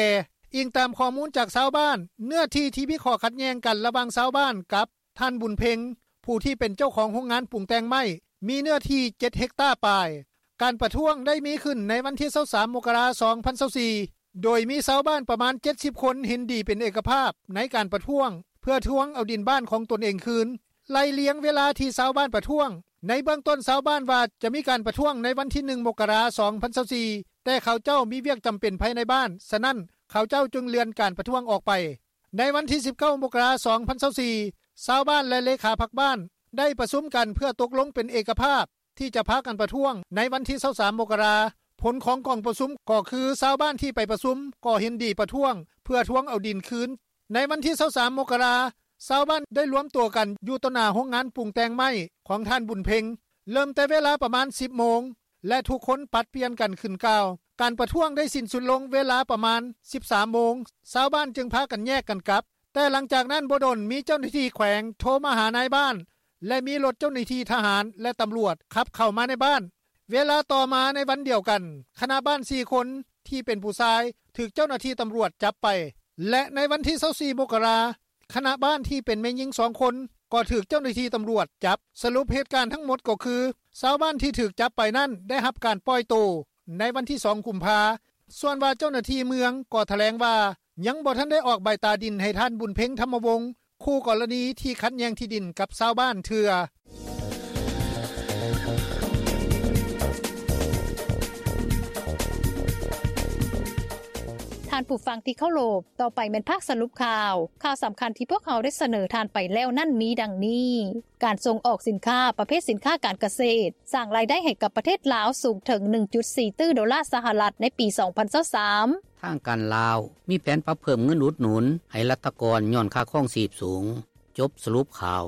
ອີງຕາມຂໍ້ມູນຈາກຊາວບ້ານ, ເນື້ອທີ່ທີ່ມີຂໍ້ຂັດແຍ່ງກັນລະຫວ່າງຊາວບ້ານກັບ ທ່ານ ບຸນເພັງ ຜູ້ທີ່ເປັນເຈົ້າຂອງໂຮງງານປຸງແຕ່ງໄມ້ ມີເນື້ອທີ່ເຈັດເຮັກຕາປາຍ. ການປະທ້ວງໄດ້ມີຂຶ້ນໃນວັນທີຊາວສາມ ມົກກະລາ ສອງພັນຊາວສີ່ ໂດຍມີຊາວບ້ານປະມານເຈັດສິບຄົນເຫັນດີເປັນເອກະພາບໃນການປະທ້ວງ ເພື່ອທວງເອົາດິນບ້ານຂອງຕົນເອງຄືນ. ໄລ່ລຽງເວລາທີ່ຊາວບ້ານປະທ້ວງ, ໃນເບື້ອງຕົ້ນຊາວບ້ານວ່າຈະມີການປະທ້ວງໃນວັນທີໜຶ່ງ ມົກກະລາ ສອງພັນຊາວສີ່ ແຕ່ເຂົາເຈົ້າມີວຽກຈຳເປັນພາຍໃນບ້ານ, ສະນັ້ນເຂົາເຈົ້າຈຶ່ງເລື່ອນການປະທ້ວງອອກໄປ. ໃນວັນທີສິບເກົ້າ ມົກກະລາ ສອງພັນຊາວສີ່ ຊາວບ້ານ ແລະ ເລຂາພັກບ້ານ ໄດ້ປະຊຸມກັນເພື່ອຕົກລົງເປັນເອກະພາບ ທີ່ຈະພາກັນປະທ້ວງໃນວັນທີຊາວສາມ ມົກກະລາ. ຜົນຂອງກອງປະຊຸມກໍຄືຊາວບ້ານທີ່ໄປປະຊຸມກໍເຫັນດີປະທ້ວງເພື່ອທວງເອົາດິນຄືນ. ໃນວັນທີຊາວສາມ ມົກກະລາ, ຊາວບ້ານໄດ້ລວມຕົວກັນຢູ່ຕໍ່ໜ້າໂຮງງານປຸງແຕ່ງໄມ້ຂອງທ່ານບຸນເພັງ ເລີ່ມແຕ່ເວລາປະມານ ສິບໂມງ ແລະ ທຸກຄົນຜັດປ່ຽນກັນຂຶ້ນກ່າວ. ການປະທ້ວງໄດ້ສິ້ນສຸດລົງເວລາປະມານ ສິບສາມໂມງ ຊາວບ້ານຈຶ່ງພາກັນແຍກກັນກັບ. ແຕ່ຫຼັງຈາກນັ້ນບໍ່ດົນ ມີເຈົ້າໜ້າທີ່ແຂວງໂທມາຫານາຍບ້ານ ແລະ ມີລົດເຈົ້າໜ້າທີ່ທະຫານ ແລະ ຕຳຫຼວດຂັບເຂົ້າມາໃນບ້ານ. ເວລາຕໍ່ມາໃນວັນດຽວກັນ ຄະນະບ້ານ ສີ່ຄົນ ທີ່ເປັນຜູ້ຊາຍ ຖືກເຈົ້າໜ້າທີ່ຕຳຫຼວດຈັບໄປ ແລະ ໃນວັນທີ ຊາວສີ່ ມົກກະລາ ຄະນະບ້ານທີ່ເປັນແມ່ຍິງ ສອງຄົນ ກໍຖືກເຈົ້າໜ້າທີ່ຕຳຫຼວດຈັບ. ສະຫຼຸບເຫດການທັງໝົດກໍຄື ຊາວບ້ານທີ່ຖືກຈັບໄປນັ້ນໄດ້ຮັບການປ່ອຍໂຕໃນວັນທີ ສອງ ກຸມພາ. ສ່ວນວ່າເຈົ້າໜ້າທີ່ເມືອງກໍຖະແຫຼງວ່າ ຍັງບໍ່ທັນໄດ້ອອກໃບຕາດິນໃຫ້ທ່ານບຸນເພັງ ທຳມະວົງ ຄູ່ກໍລະນີທີ່ຂັດແຍ່ງທີ່ດິນກັບຊາວບ້ານເທື່ອ. ທ່ານຜູ້ຟັງທີ່ເຄົາລົບ, ຕໍ່ໄປແມ່ນພາກສະຫຼຸບຂ່າວ. ຂ່າວສຳຄັນທີ່ພວກເຮົາໄດ້ສະເໜີທ່ານໄປແລ້ວນັ້ນມີດັ່ງນີ້: ການສົ່ງອອກສິນຄ້າປະເພດສິນຄ້າການກະເສດ ສ້າງລາຍໄດ້ໃຫ້ກັບປະເທດລາວສູງເຖິງ ໜຶ່ງຈຸດສີ່ຕື້ໂດລາສະຫະລັດໃນປີສອງພັນຊາວສາມ. ທາງການລາວມີແຜນປັບເພີ່ມເງິນອຸດໜູນໃຫ້ລັດຖະກອນຍ້ອນຄ່າຄອງຊີບສູງ. ຈົບສະຫຼຸບຂ່າວ.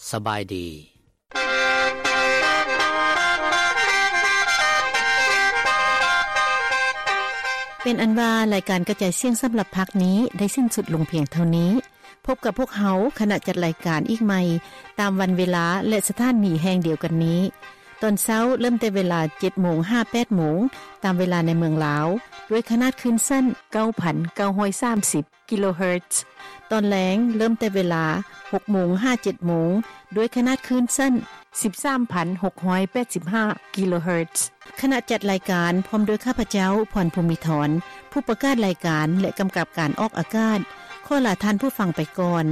ສະບາຍດີ. ເປັນອັນວ່າລາຍການກະຈາຍສຽງສຳລັບພາກນີ້ໄດ້ສິ້ນສຸດລົງພຽງເທົ່ານີ້. ພົບກັບພວກເຮົາຄະນະຈັດລາຍການອີກໃໝ່ ຕາມວັນເວລາ ແລະ ສະຖານີແຫ່ງດຽວກັນນີ້. ຕອນເຊົ້າເລີ່ມແຕ່ເວລາ ເຈັດໂມງຫາ ແປດໂມງ ຕາມເວລາໃນເມືອງລາວ ດ້ວຍຂະໜາດຄື້ນສັ້ນ ເກົ້າພັນເກົ້າຮ້ອຍສາມສິບ ກິໂລເຮີດ. ຕອນແລງເລີ່ມແຕ່ເວລາ ຫົກໂມງຫາ ເຈັດໂມງ ດ້ວຍຂະໜາດຄື້ນສັ້ນ ສິບສາມພັນຫົກຮ້ອຍແປດສິບຫ້າ ກິໂລເຮີດ. ຄະນະຈັດລາຍການ ພ້ອມດ້ວຍຂ້າພະເຈົ້າ ພອນ ພູມິທອນ ຜູ້ປະກາດລາຍການ ແລະ ກຳກັບການອອກອາກາດ ຂໍລາທ່ານຜູ້ຟັງໄປກ່ອນ.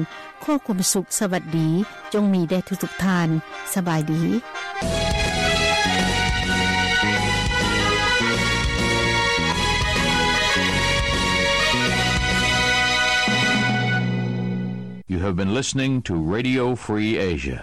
ຂໍຄວາມສຸກສະຫວັດດີ ຈົ່ງມີແດ່ທຸກໆທ່ານ. ສະບາຍດີ. You have been listening to Radio Free Asia.